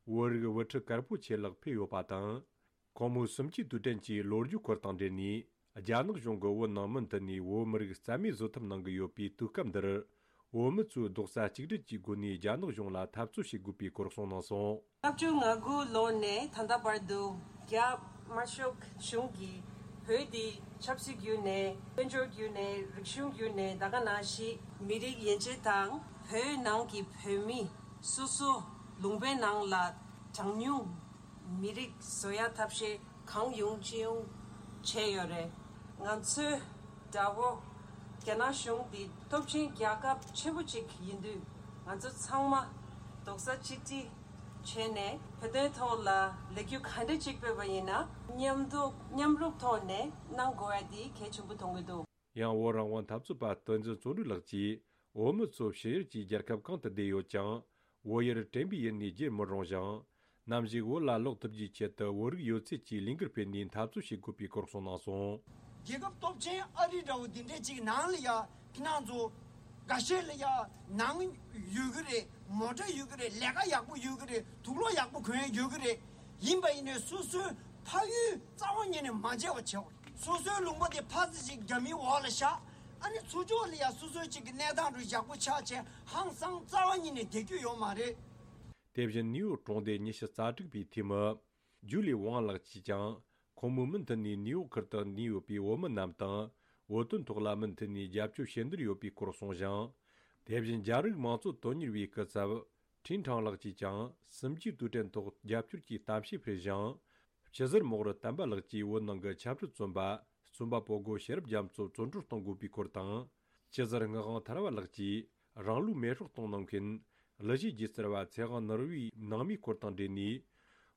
བོད་རིགས་དབུ་ཁྲིད་དཀར་པོ་ཆེ་ལགས་ཕེབས་ཡོད་པ་དང་། ཁོང་མོས་གསུམ་བཅུའི་དུས་དྲན་གྱི་ལོ་རྒྱུས་སྐོར་དང་འབྲེལ་ནས། རྒྱ་ནག་གཞུང་གིས་བོད་ནང་མུ་མཐུད་ནས་བོད་མི་རིགས་རྩ་མེད་བཟོ་ཐབས་གནང་གི་ཡོད་པའི་དུས་སྐབས་འདིར། བོད་མི་ཚོས་རྡོག་རྩ་གཅིག་སྒྲིལ་གྱི་སྒོ་ནས་རྒྱ་ནག་གཞུང་ལ་འཐབ་རྩོད་བྱེད་དགོས་པའི་སྐོར་གསུངས་གནང་སོང་། ལྔ་བཅུ་ང་དགུ་ལོ་ནས་ད་ལྟ་བར་དུ་རྒྱ་དམར་ཤོག་གཞུང་གིས་བོད་འདི་ཆབ་སྲིད་བརྒྱུད་ནས། དཔལ་འབྱོར་བརྒྱུད་ནས། རིག་གཞུང་བརྒྱུད་ནས། ད་ག་ནང་བཞིན་མི་རིགས་ཡན་ཆད་དང་བོད་ནང་གི་བོད་མི་སོ་སོ་ལུང་པའི་ནང་ལ་གྲངས་ཉུང་མི་རིགས་བཟོ་ཡ་ཐབས་ཤེས་གང་ཡོང་ཅི་ཡོང་བྱས་ཡོད་རེད། ང་ཚོའི་དགྲ་བོ་རྒྱ་ནག་གཞུང་འདི་སྟོབས་ཆེན་རྒྱལ་ཁབ་ཆེན་པོ་ཅིག་ཡིན་དུས། ང་ཚོ་ཚང་མ་རྡོག་རྩ་གཅིག་སྒྲིལ་བྱས་ནས་བོད་དོན་ཐོག་ལ་ལས་འགུལ་ག་འདྲ་ཅིག་སྤེལ་བ་ཡིན་ན་མཉམ་དུ་མཉམ་རུབ་ཐོག་ནས་གནང་དགོས་ཡ་འདི་གལ་ཆེན་པོ་མཐོང་གི་འདུག། ཡང་བོད་རང་དབང་འཐབ་རྩོད་པ་བསྟན་འཛིན་བརྩོན་འགྲུས་ལགས་ཀྱིས། བོད་མི་ཚོ་ཕྱི་ཡུལ་གྱི་རྒྱལ་ཁབ་གང་དུ་བསྡད་ཡོད་ཀྱང་། བོད་ཡུལ་དྲན་པའི་ཡུལ་ནས་བརྗེད་མི་རུང་ཞིང་། ནམ་ཞིག་བོད་ལ་ལོག་ཐུབ་རྒྱུའི་ཆེད་དུ་བོད་རིགས་ཡོད་ཚད་ཀྱིས་ལས་འགུལ་སྤེལ་ནས་འཐབ་རྩོད་བྱེད་དགོས་པའི་སྐོར་གསུངས་གནང་སོང་། རྒྱལ་ཁབ་སྟོབས་ཆེན་ཨ་རི་འདྲ་བོ་འདི་འདྲས་ཅིག་ནང་ལ་ཡ་ཁྱེད་རང་ཚོ་འགའ་ཤས་ལ་ཡ་ནང་ཡོད་གི་རེད། མོ་ཊ་ཡོད་གི་རེད། ལས་ཀ་ཡག་པོ་ཡོད་གི་རེད། དུག་ལོག་ཡག་པོ་གོན་ཡ་ཡོད་གི་རེད། ཡིན་པ་ཡིན་ནའི་སོ་སོའི་ཕ་ཡུལ་རྩ་བ་ཉིད་ནས་མ་མཇལ་བ་བྱེད་དགོས། སོ་སོའི་ལུང་པ་དེ་ཕར་ཙམ་ཞིག་རྒྱ་མིའི་འོག་ལ་བཞག་ཨ་ནི་ཚུར་ཕྱོགས་ལ་ཡ་སོ་སོའི་ཅིག་གི་གནས་སྟངས་རུ་ཡག་པོ་ཆགས་བྱས་ཧང་སང་རྩ་བ་ཉིད་ནས་བསྡད་རྒྱུ་ཡོད་མ་རེད། དེ་བཞིན་ནིའུ་ཡོག་གྲོང་སྡེ་ཉི་ཤུ་རྩ་དྲུག་པའི་འཐུས་མི་ཇུ་ལི་ཝང་ལགས་ཀྱིས་ཀྱང་། ཁོང་མོས་མུ་མཐུད་ནས་ནིའུ་ཡོག་ཁུལ་དུ་གནས་ཡོད་པའི་བོད་མི་རྣམས་དང་། བོད་དོན་ཐོག་ལ་མུ་མཐུད་ནས་རྒྱབ་སྐྱོར་བྱེད་འདོད་ཡོད་པའི་སྐོར་གསུངས་ཤིང་། དེ་བཞིན་རྒྱ་རིགས་མང་གཙོ་དོན་གཉེར་བའི་སྐུ་ཚབ་ཁྲིན་ཁྲང་ལགས་ཀྱིས་ཀྱང་། གསུམ་བཅུའི་དུས་དྲན་ཐོག་རྒྱབ་སྐྱོར་གྱི་གཏམ་བཤད་སྤེལ་ཞིང་། སྤྱི་ཟུར་མོག་རུ་དམ་པ་ལགས་ཀྱིས་བོད་ནང་གི་ཆབ་སྲིད་བཙོན་པ་རྩོམ་པ་པོ་སྒོ་ཤེས་རབ་རྒྱ་མཚོ་བཙོན་གྲོལ་གཏོང་དགོས་པའི་སྐོར་དང་། སྤྱི་ཟུར་ངག་དབང་ཐར་བ་ལགས་ཀྱིས་རང་ལུས་མེ་སྲེག་གཏོང་གནང་མཁན་གླུ་གཞས་སྒྱུ་རྩལ་བ་ཚེ་དབང་ནོར་བུའི་ནང་མིའི་སྐོར་དང་འབྲེལ་ནས།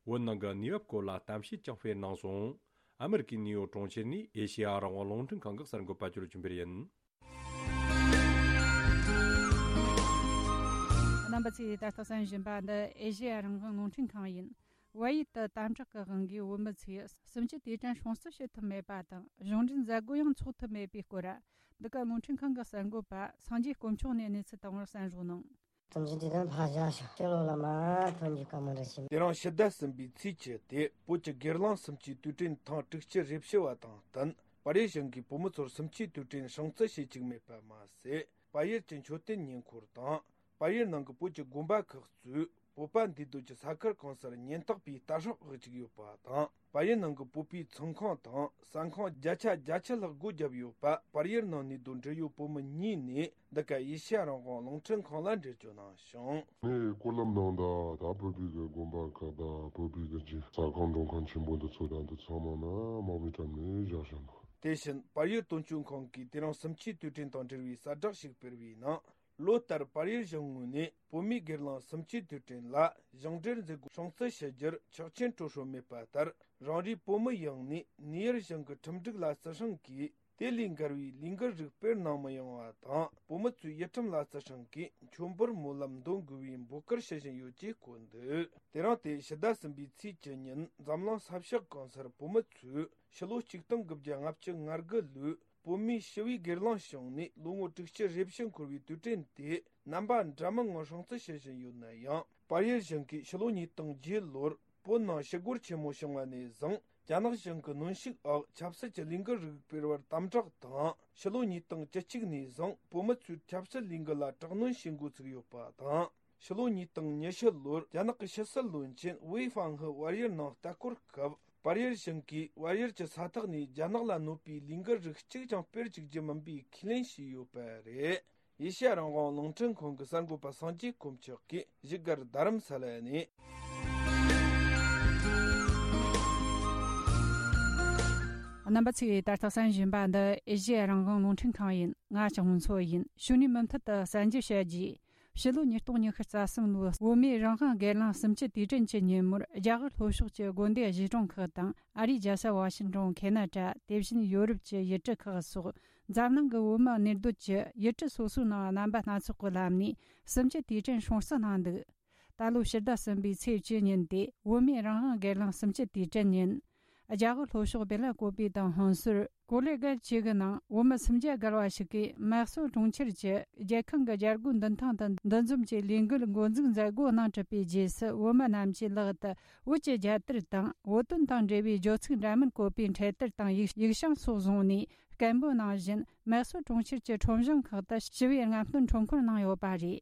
བོད་ནང་གི་གནས་བབ་སྐོར་ལ་གཏམ་བཤད་ཀྱང་སྤེལ་གནང་སོང་། ཨ་མེ་རི་ཀའི་ནིའུ་ཡོག་གྲོང་ཁྱེར་ནས་ཨེ་ཤེ་ཡ་རང་དབང་རླུང་འཕྲིན་ཁང་གི་གསར་འགོད་པ་ཅོ་ལོ་ཆོས་འཕེལ་ཡིན། རྣམ་པ་ཚོས་ད་ལྟ་གསན་བཞིན་པ་འདི་ཨེ་ཤེ་ཡ་རང་དབང་རླུང་འཕྲིན་ཁང་ཡིན། བལ་ཡུལ་དུ་དམ་དྲག་གི་དབང་གིས་བོད་མི་ཚོས་གསུམ་བཅུའི་དུས་དྲན་སྲུང་བརྩི་བྱེད་ཐུབ་མེད་པ་དང་། གཞུང་འབྲེལ་མཛད་སྒོ་ཡང་འཚོགས་ཐུབ་མེད་པའི་སྐོར། འདི་ག་རླུང་འཕྲིན་ཁང་གི་གསར་འགོད་པ་སངས་རྒྱས་དཀོན་མཆོག་ནས་གནས་ཚུལ་བཏང་བར་གསན་རོགས་གནང་། གསུམ་བཅུའི་དུས་དྲན་ཕར་བཞག་ཤག་ཤེས་ལོ་ལ་མ་ཐོན་རྒྱུ་དཀའ་མོ་འདྲ་ཞིག་དེ་རིང་ཕྱི་ཟླ་གསུམ་པའི་ཚེས་བཅུ་དེ་བོད་ཀྱི་སྒེར་ལངས་གསུམ་བཅུའི་དུས་དྲན་ཐེངས་དྲུག་ཅུ་རེ་བཞི་བ་དང་བསྟུན། པར་རིས་གཞུང་གིས་བོད་མི་ཚོར་གསུམ་བཅུའི་དུས་དྲན་སྲུང་བརྩི་བྱེད་བཅུག་མེད་པ་མ་ཟད། པར་ཡུལ་གྱི་མཆོད་རྟེན་ཉེ་འཁོར་དང་ པར་ཡུལ་ནང་གི་བོད་ཀྱི་དགོན་པ་ཁག་གཙོས་བོད་པ་འདུས་སྡོད་ཀྱི་ས་ཁུལ་གང་སར་ཉེན་རྟོག་པའི་ལྟ་རྟོག་བྱེད་ཀྱི་ཡོད་པ་དང་། པར་ཡུལ་ནང་གི་བོད་པའི་ཚོང་ཁང་དང་ཟ་ཁང་བརྒྱ་ཆ་བརྒྱད་ཅུ་ལྷག་སྒོ་བརྒྱབ་ཡོད་པ། པར་ཡུལ་ནང་ནས་སྡོད་འབྲེལ་ཡོད་བོད་མི་གཉིས་ནས་འདི་ག་ཨེ་ཤེ་ཡ་རང་དབང་རླུང་འཕྲིན་ཁང་ལ་འགྲེལ་བརྗོད་གནང་བྱུང་། ངས་སྐོར་ལམ་ནང་དང་ད་བོད་པའི་གི་དགོན་པ་ཁག་དང་བོད་པའི་གི་ཅིག་ཟ་ཁང་མགྲོན་ཁང་ཆེན་པོ་འདི་ཚོ་དང་འདི་ཚང་མ་ན་དམག་མིའི་འགྲམ་ནས་བཞག་བཞག་འདུག། དེ་བཞིན་པར་ཡུལ་དོན་གཅོད་ཁང་གིས་དེ་རིང་སུམ་ཆའི་དུས་དྲན་དང་འབྲེལ་བའི་གསལ་བསྒྲགས་ཤིག་སྤེལ་བའི་ནང་། ལོ་ལྟར་པར་ཡུལ་གཞུང་ངོས་ནས་བོད་མིའི་སྒེར་ལངས་སུམ་ཆའི་དུས་དྲན་ལ་ཞིང་འབྲེལ་མཛད་སྒོ་སྲུང་བརྩི་ཞུ་རྒྱུར་ཆོག་མཆན་སྤྲོད་སྲོལ་མེད་པ་ལྟར། རང་རེའི་བོད་མི་ཡོངས་ནས་ནེའུ་ཡོག་གཞུང་གི་ཁྲིམས་སྒྲིག་ལ་བརྩི་སྲུང་གིས། དེ་ལས་འགལ་བའི་ལས་འགུལ་རིགས་སྤེལ་གནང་མི་ཡོང་བ་དང་། བོད་མི་ཚོས་ཡུལ་ཁྲིམས་ལ་བརྩི་སྲུང་གིས་མཆོད་འབུལ་སྨོན་ལམ་འདོན་དགོས་པའི་འབོད་སྐུལ་ཞུ་བཞིན་ཡོད་ཅེས་བཀོད་འདུག། དེ་རིང་སྟེ་ཕྱི་ཟླ་གསུམ་པའི་ཚེས་བཅུ་ཉིན་འཛམ་གླིང་ས་ཕྱོགས་གང་སར་བོད་མི་ཚོས་ཕྱི་ལོ་ཆིག་སྟོང་དགུ་བརྒྱ་ལྔ་བཅུ་ང་དགུ་ལོའི་བོད་མིའི་ཞི་བའི་སྒེར་ལངས་བྱུང་ནས་ལོ་ངོ་དྲུག་ཅུ་རེ་བཞི་འཁོར་བའི་དུས་དྲན་དེ་རྣམ་པ་འདྲ་མིན་ངང་སྲུང་བརྩི་བྱེད་བཞིན་ཡོད་ན་ཡང་། པར་ཡུལ་གཞུང་གིས་ཕྱི་ལོ་ཉིས་སྟོང་བརྒྱད་ལོར་བོད་ནང་ཞི་རྒོལ་ཆེན་མོ་བྱུང་བ་ནས་བཟུང་། རྒྱ་ནག་གཞུང་གི་གནོན་ཤུགས་འོག་ཆབ་སྲིད་ཀྱི་ལས་འགུལ་རིགས་སྤེལ་བར་དམ་དྲག་དང་། ཕྱི་ལོ་ཉིས་སྟོང་བཅུ་གཅིག་ནས་བཟུང་བོད་མི་ཚོའི་ཆབ་སྲིད་ལས་འགུལ་ལ་དྲག་གནོན་བྱེད་འགོ་ཚུགས་ཡོད་པ་དང་། ཕྱི་ལོ་ཉིས་སྟོང་ཉི་ཤུ་ལོར་རྒྱ་ནག་གི་ཕྱི་སྲིད་བློན་ཆེན་ཝེ་ཧྥང་ཧི་བལ་ཡུལ་ནང་ལྟ་སྐོར་སྐབས། པར་ཡུལ་གཞུང་གིས་བལ་ཡུལ་གྱི་ས་ཐོག་ནས་རྒྱ་ནག་ལ་གནོད་པའི་ལས་འགུལ་རིགས་གཅིག་ཀྱང་སྤེལ་བཅུག་རྒྱུ་མིན་པའི་ཁས་ལེན་བྱས་ཡོད་པ་རེད། ཨེ་ཤེ་ཡ་རང་དབང་རླུང་འཕྲིན་ཁང་གི་གསར་འགོད་པ་སངས་རྒྱས་དཀོན་མཆོག་གིས་བཞུགས་སྒར་རྡ་རམ་ས་ལ་ནས། རྣམ་པ་ཚོས་ད་ལྟ་གསན་བཞིན་པ་འདི་ཨེ་ཤེ་ཡ་རང་དབང་རླུང་འཕྲིན་ཁང་ཡིན། ང་ལྕགས་མོ་མཚོ་ཡིན། གཞུག་ནས་མུ་མཐུད་དུ་གསར་འགྱུར་བཤད་རྒྱུ། ཕྱི་ལོ་ཉིས་སྟོང་ཉི་ཤུ་རྩ་གསུམ་ལོའི་བོད་མིའི་རང་དབང་སྒེར་ལངས་གསུམ་བཅུའི་དུས་དྲན་གྱི་ཉིན་མོར་རྒྱ་གར་ལྷོ་ཕྱོགས་ཀྱི་དགོན་སྡེ་གཞིས་གྲོང་ཁག་དང་ཨ་རིའི་རྒྱལ་ས་ཝ་ཤིང་ཏོན། ཁེ་ན་ཌ། དེ་བཞིན་ཡོ་རོབ་ཀྱི་ཡུལ་གྲུ་ཁག་སོགས་འཛམ་གླིང་གི་བོད་མི་གནས་སྡོད་ཀྱི་ཡུལ་གྲུ་སོ་སོའི་ནང་རྣམ་པ་སྣ་ཚོགས་ཀྱི་ལམ་ནས་གསུམ་བཅུའི་དུས་དྲན་སྲུང་བརྩི་གནང་འདུག། ད་ལོ་ཕྱི་ཟླ་གསུམ་པའི་ཚེས་བཅུ་ཉིན་ཏེ་བོད་མིའི་རང་དབང་སྒེར་ལངས་གསུམ་བཅུའི་དུས་དྲན་ཡིན། རྒྱ་གར་ལྷོ་ཕྱོགས་བེ་ལ་ཀོ་པི་དང་ཧོན་སུར། ཀོ་ལེ་གྷལ་བཅས་ཀྱི་ནང་བོད་མི་སུམ་བརྒྱ་བརྒལ་བ་ཞིག་གིས་མེག་སོ་གྲོང་ཁྱེར་གྱི་རྒྱལ་ཁང་གི་རྒྱལ་སྒོ་མདུན་ཐང་དུ་འདུ་འཛོམས་ཀྱི་ལས་འགུལ་འགོ་འཛུགས་མཛད་སྒོ་གནང་གྲུབ་པའི་རྗེས་སུ། བོད་མི་རྣམས་ཀྱིས་ལག་ཏུ་བོད་ཀྱི་རྒྱལ་དར་དང་བོད་དོན་དང་འབྲེལ་བའི་བརྗོད་ཚིག་འདྲ་མིན་བཀོད་པའི་འཕྲེད་དར་དང་ཡིག་ཡིག་བྱང་སོགས་བཟུང་ནས། སྐད་འབོད་གནང་བཞིན་མེག་སོ་གྲོང་ཁྱེར་གྱི་ཁྲོམ་གཞུང་ཁག་ཏུ་ཞི་བའི་རྔམ་སྟོན་ཁྲོམ་སྐོར་གནང་ཡོད་པ་རེད།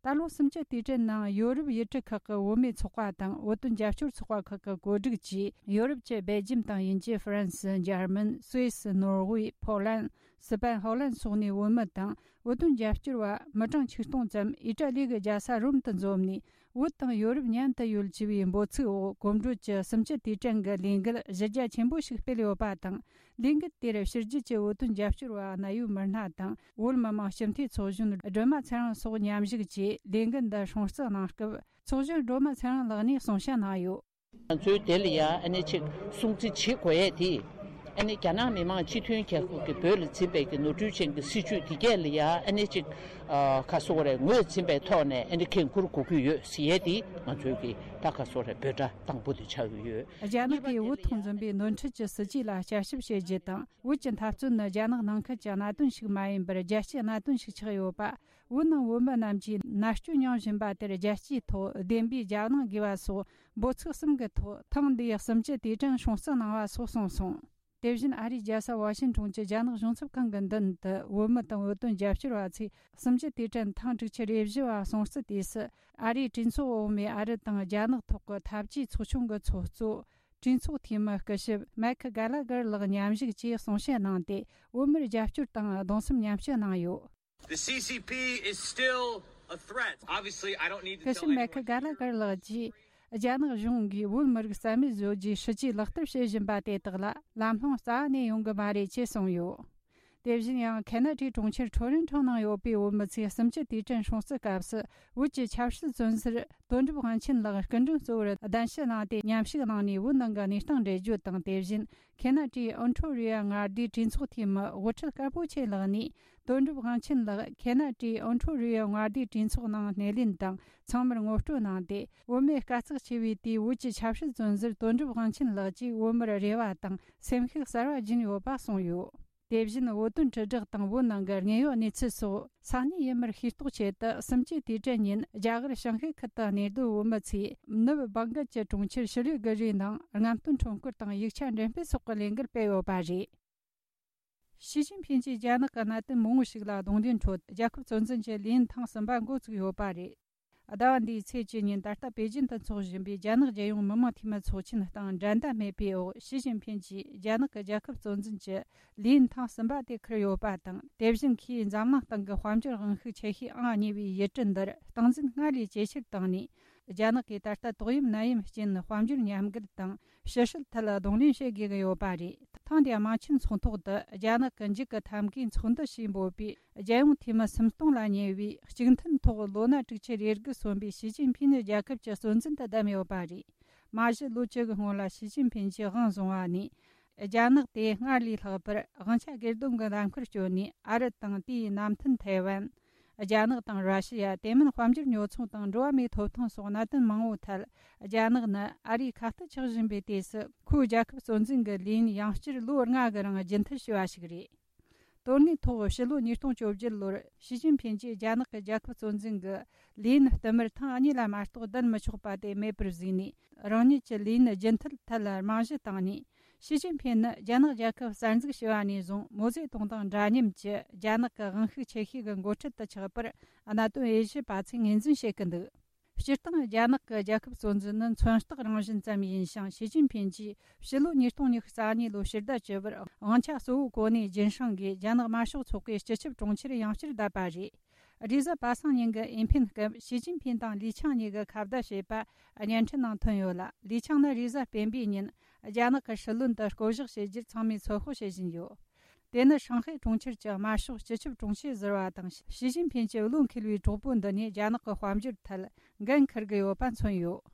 ད་ལོ་གསུམ་བཅུའི་དུས་དྲན་ནང་ཡོ་རོབ་ཡུལ་གྲུ་ཁག་གི་བོད་མིའི་ཚོགས་པ་དང་བོད་དོན་རྒྱབ་སྐྱོར་ཚོགས་པ་ཁག་གི་བཀོད་སྒྲིག་གིས། ཡོ་རོབ་ཀྱི་སྦེལ་ཇམ་དང་དབྱིན་ཇི། ཧྥ་རན་སི། འཇར་མན། སུད་སི། ནོར་ཝེ། ཕོ་ལན། སི་པན། ཧོ་ལན་སོགས་ནས་བོད་མི་དང་བོད་དོན་རྒྱབ་སྐྱོར་བ་མི་གྲངས་ཆིག་སྟོང་ཙམ་ཨི་ཏྲ་ལི་གི་རྒྱལ་ས་རོམ་དུ་འཛོམས་ནས། བོད་དང་ཡོ་རོབ་མཉམ་དུ་ཡོད་ཅེས་པའི་འབོད་ཚིག་འོག་གོམ་བགྲོད་ཀྱི་གསུམ་བཅུའི་དུས་དྲན་གྱི་ལས་འགུལ་གཞི་རྒྱ་ཆེན་པོ་ཞིག་སྤེལ་ཡོད་པ་དང་། ལས་འགུལ་དེར་ཕྱི་རྒྱལ་གྱི་བོད་དོན་རྒྱབ་སྐྱོར་བ་གནད་ཡོད་མི་སྣ་དང་། བོད་མི་མང་སྤྱི་འཐུས་ཚོགས་གཞོན་སྒྲོལ་མ་ཚེ་རིང་སོགས་མཉམ་ཞུགས་ཀྱིས་ལས་འགུལ་འདི་སྲུང་བརྩི་གནང་སྐབས། ཚོགས་གཞོན་སྒྲོལ་མ་ཚེ་རིང་ལགས་ནས་གསུང་བཤད་གནང་ཡོད། ང་ཚོའི་དེ་ལ་ཡ་ཨ་ནི་ཅིག་སྲུང་བརྩི་བྱེད་དགོས་ཡས་དེ། ཨ་ནི་རྒྱ་ནག་མི་དམངས་སྤྱི་མཐུན་རྒྱལ་ཁབ་ཀྱི་བོད་ལ་འཛིན་པའི་གི་ནོར་འཁྲུལ་ཅན་གྱི་སྲིད་བྱུས་དེ་གས་ལ་ཡ་ཨ་ནི་ཅིག་ཨ་ག་སོ་རེ་ངོས་འཛིན་པའི་ཐོག་ནས་ཨ་ནི་འགན་འཁུར་དགོས་ཀྱི་ཡོད་ཟེར་ཡས་དེ་ང་ཚོའི་གི་ད་ག་སོ་རེ་འབོད་སྒྲ་དང་པོ་དེ་ཆགས་ཀྱི་ཡོད། རྒྱ་ནག་གིས་བོད་ཐོག་འཛིན་པའི་ནོར་འཁྲུལ་གྱི་སྲིད་ཇུས་ལ་བསྐྱར་ཞིབ་བྱེད་རྒྱུ་དང་། བོད་ཀྱི་འཐབ་རྩོད་ནི་རྒྱ་ནག་ནང་ཁུལ་གྱི་གནད་དོན་ཞིག་མ་ཡིན་པར་རྒྱལ་སྤྱིའི་གནད་དོན་ཞིག་ཆགས་ཡོད་པ། བོད་ནང་བོད་མི་རྣམས་ཀྱིས་མནར་གཅོད་མྱོང་བཞིན་པ་དེར་རྒྱལ་སྤྱིའི་ཐོག་བདེན་པའི་རྒྱབ་ལངས་དགོས་པ་སོགས་འབོད་ཚིག་གསུམ་གྱི་ཐོག་ཐེངས་འདིའི་གསུམ་བཅུའི་དུས་དྲན་སྲུང་བརྩི་གནང་བ་སོགས་གསུངས་སོང་། དེ་བཞིན་ཨ་རིའི་རྒྱལ་ས་ཝ་ཤིང་ཊོན་གྱི་རྒྱ་ནག་གཞུང་ཚབ་ཁང་གི་མདུན་དུ་བོད་མི་དང་བོད་དོན་རྒྱབ་སྐྱོར་བ་ཚོས་གསུམ་བཅུའི་དུས་དྲན་ཐེངས་དྲུག་ཅུ་རེ་བཞི་བ་སྲུང་བརྩི་དུས་སུ། ཨ་རིའི་གྲོས་ཚོགས་འོག་མའི་ཨ་རི་དང་རྒྱ་ནག་ཐོག་གི་འཐབ་ཇུས་ཚོགས་ཆུང་གི་ཚོགས་གཙོ། གྲོས་ཚོགས་འཐུས་མི་སྐུ་ཞབས་མེག་གྷ་ལ་གྷར་ལགས་མཉམ་ཞུགས་ཀྱིས་གསུང་བཤད་གནང་སྟེ། བོད་མིར་རྒྱབ་སྐྱོར་དང་གདུང་སེམས་མཉམ་སྐྱེད་གནང་ཡོད། The C C P is still a threat. Obviously, I don't need to tell anyone here. སྐུ་ཞབས་མེག་གྷ་ལ་གྷར་ལགས་ཀྱིས། རྒྱ་ནག་གཞུང་གིས་བོད་མི་རིགས་རྩ་མེད་བཟོ་རྒྱུའི་སྲིད་ཇུས་ལག་བསྟར་བྱེད་བཞིན་པ་དེ་དག་ལ་ལམ་ལྷོང་རྩ་བ་ནས་ཡོང་གི་མ་རེད་ཅེས་གསུངས་ཡོད། དེ་བཞིན་ཡང་ཁེ་ན་ཌའི་གྲོང་ཁྱེར་ཊོ་རོན་ཊོ་ནང་ཡོད་པའི་བོད་མི་ཚོས་གསུམ་བཅུའི་དུས་དྲན་སྲུང་བརྩི་སྐབས་སུ། བོད་ཀྱི་ཆབ་སྲིད་བཙོན་ཟུར་དོན་གྲུབ་དབང་ཆེན་ལགས་སྐུ་མགྲོན་གཙོ་བོར་གདན་ཞུ་གནང་སྟེ་མཉམ་ཞུགས་གནང་ནས་བོད་ནང་གི་གནས་སྟངས་འགྲེལ་བརྗོད་དང་། དེ་བཞིན་ཁེ་ན་ཌའི་ཨོན་ཊོ་རི་ཡོ་མངའ་སྡེའི་གྲོས་ཚོགས་འཐུས་མི་དབུ་ཁྲིད་དཀར་པོ་ཆེ་ལགས་ནས། དོན་གྲུབ་དབང་ཆེན་ལགས་ཁེ་ན་ཌའི་ཨོན་ཊོ་རི་ཡོ་མངའ་སྡེའི་གྲོས་ཚོགས་ནང་སྣེ་ལེན་དང་ཚང་མར་ངོ་སྤྲོད་གནང་སྟེ། བོད་མིའི་དཀའ་ཚེགས་ཆེ་བའི་དུས་བོད་ཀྱི་ཆབ་སྲིད་བཙོན་ཟུར་དོན་གྲུབ་དབང་ཆེན་ལགས་ཀྱིས་བོད་མིར་རེ་བ་དང་སེམས་ཤུགས་གསར་བ་སྦྱིན་ཡོད་པ་གསུངས་ཡོད། དེ་བཞིན་བོད་དོན་དྲིལ་བསྒྲགས་དང་བོད་ནང་གི་དངོས་ཡོད་གནས་ཚུལ་སོགས་ས་གནས་ཡུལ་མིར་ཤེས་རྟོགས་ཆེད་དུ། གསུམ་བཅུའི་དུས་དྲན་ཉིན་རྒྱ་གར་ཞིན་ཧེ་ཁུལ་དུ་གནས་སྡོད་བོད་མི་ཚོས་ནུབ་བང་གལ་གྱི་གྲོང་ཁྱེར་ཤི་ལི་གུ་རིའི་ནང་རྔམ་སྟོན་ཁྲོམ་སྐོར་དང་ཡིག་ཆ་འགྲེམས་སྤེལ་སོགས་ཀྱི་ལས་འགུལ་སྤེལ་ཡོད་པ་རེད། ཞི་ཅིན་ཕིན་གྱིས་རྒྱ་ནག་གི་གནད་དོན་མང་བོ་ཞིག་ལ་གདོང་ལེན་ཁྲོད། རྒྱལ་ཁབ་གཙོ་འཛིན་གྱི་ལས་ཡུན་ཐེངས་གསུམ་པ་འགོ་བཙུགས་ཡོད་པ་རེད། ཟླ་བ་འདིའི་ཚེས་བཅུ་ཉིན་ད་ལྟ་པེ་ཅིན་དུ་འཚོགས་བཞིན་པའི་རྒྱ་ནག་རྒྱལ་ཡོངས་མི་མང་འཐུས་མི་ཚོགས་ཆེན་སྟེང་འགྲན་ཟླ་མེད་པའི་འོག་ཞི་ཅིན་ཕིན་གྱིས་རྒྱ་ནག་གི་རྒྱལ་ཁབ་གཙོ་འཛིན་གྱི་ལས་ཡུན་ཐེངས་གསུམ་པ་དེ་འཁུར་ཡོད་པ་དང་། དེ་བཞིན་ཁོས་འཛམ་གླིང་སྟེང་གི་དཔལ་འབྱོར་དབང་ཤུགས་ཆེ་ཤོས་ཨང་གཉིས་པའི་ཡུལ་གྲུ་འདིར་སྟངས་འཛིན་སྔར་ལས་ཇེ་ཆེར་བཏང་ནས། རྒྱ་ནག་གིས་ད་ལྟ་ཏོག་དབྱིབས་ནད་ཡམས་རྐྱེན་དཔལ་འབྱོར་ཉམས་རྒུད་དང་ཕྱི་སྲིད་ཐད་གདོང་ལེན་བྱེད་དགོས་ཀྱི་ཡོད་པ་རེད། ཐེངས་འདིའི་དམངས་ཆེན་ཚོགས་ཐོག་ཏུ་རྒྱ་ནག་གི་འཇིགས་ཀྱི་ཐབས་མཁས་ཚོགས་འདུ་ཞེས་འབོད་པའི་རྒྱལ་ཡོངས་འཐུས་མི་སུམ་སྟོང་ལ་ཉེ་བས། གཅིག་མཐུན་ཐོག་ལོ་ན་དྲུག་ཅུ་རེ་དགུ་སོན་པའི་ཞི་ཅིན་ཕིན་རྒྱལ་ཁབ་ཀྱི་གཙོ་འཛིན་དུ་བདམས་ཡོད་པ་རེད། མ་གཞི་ལོ་བཅུ་གི་སྔོན་ལ་ཞི་ཅིན་ཕིན་གྱིས་དབང་བཟུང་བ་ནས། རྒྱ་ནག་དེ་སྔར་ལས་ལྷག་པར་དབང་ཆ་སྒེར་སྡོམ་གྱི་ལམ་ཁར་བསྐྱོད་ནས། ཨ་རི་དང་དེའི་མནའ་མཐུན་ཐའེ་ཝན། རྒྱ་ནག་དང་ར་ཤི་ཡ། དེ་མིན་དཔལ་འབྱོར་ཉོ་ཚོང་དང་འགྲོ་བ་མིའི་ཐོབ་ཐང་སོགས་གནད་དོན་མང་བོའི་ཐད། རྒྱ་ནག་ནི་ཨ་རིའི་ཁ་གཏད་ཆགས་བཞིན་པའི་དུས་སུ། ཁོའི་རྒྱལ་ཁབ་གཙོ་འཛིན་གྱི་ལས་ཡུན་ཡང་བསྐྱར་ལོ་ལྔ་གི་རིང་རྒྱུན་མཐུད་བྱས་པ་ཞིག་རེད། དོན་དངོས་ཐོག་ཕྱི་ལོ་ཉིས་སྟོང་བཅོ་བརྒྱད་ལོར་ཞི་ཅིན་ཕིན་གྱིས་རྒྱ་ནག་གི་རྒྱལ་ཁབ་གཙོ་འཛིན་གྱི་ལས་ཡུན་བསྟུད་མར་ཐེངས་གཉིས་ལ་མ་གཏོགས་བསྡད་མི་ཆོག་པ་དེ་མེད་པར་བཟོས་ནས། རང་ཉིད་ཀྱི་ལས་ཡུན་རྒྱུན་མཐུད་ཐད་རྨང་གཞི་བཏིང་ནས། ཞི་ཅིན་ཕིན་ནི་རྒྱ་ནག་རྒྱལ་ཁབ་གསར་འཛུགས་བྱས་པ་ནས་བཟུང་མའོ་ཙེ་ཏུང་དང་འདྲ་མཉམ་གྱི་རྒྱ་ནག་གི་དབང་ཤུགས་ཆེ་ཤོས་ཀྱི་འགོ་ཁྲིད་དུ་ཆགས་པར་གནད་དོན་དབྱེ་ཞིབ་པ་ཚོས་ངོས་འཛིན་བྱེད་ཀྱི་འདུག་སྤྱིར་བཏང་རྒྱ་ནག་གི་རྒྱལ་ཁབ་གཙོ་འཛིན་ནི་མཚོན་རྟགས་རང་བཞིན་ཙམ་ཡིན་ཞིང་། ཞི་ཅིན་ཕིན་གྱིས་ཕྱི་ལོ་ཉིས་སྟོང་ཉི་ཤུ་རྩ་གཉིས་ལོའི་ཕྱི་ཟླ་བཅུ་པར་དབང་ཆ་གཙོ་བོ་གོ་གནས་རྒྱུན་བསྲིང་གིས་རྒྱ་ནག་དམར་ཤོག་ཚོགས་པའི་སྤྱི་ཁྱབ་དྲུང་ཆེར་ཡང་བསྐྱར་བསྡད་པ་རེད། རེས་གཟའ་པ་སངས་ཉིན་གྱི་ཨེ་ཕེན་སྐབས་ཞི་ཅིན་ཕིན་དང་ལི་ཆང་གཉིས་ཀྱི་ཁ་བརྡ་བྱས་པ་བརྙན་འཕྲིན་ནང་ཐོན་ཡོད་ལ། ལི་ཆང་ནི་རེས་གཟའ་སྤེན་པའི་ཉིན་རྒྱ་ནག་གི་སྲིད་བློན་དུ་བསྐོ་གཞག་བྱེད་རྒྱུར་ཚང་མས་ཚོད་དཔག་བྱེད་བཞིན་ཡོད། དེ་ནི་ཧྲང་ཧའེ་གྲོང་ཁྱེར་གྱི་དམར་ཤོག་སྤྱི་ཁྱབ་དྲུང་ཆེ་ཟུར་པ་དང་ཞི་ཅིན་ཕིན་གྱི་བློ་འཁེལ་བའི་གྲོགས་པོ་འདི་ནས་རྒྱ་ནག་གི་དཔལ་འབྱོར་ཐད་འགན་འཁུར་གྱི་ཡོད་པ་མཚོན་ཡོད།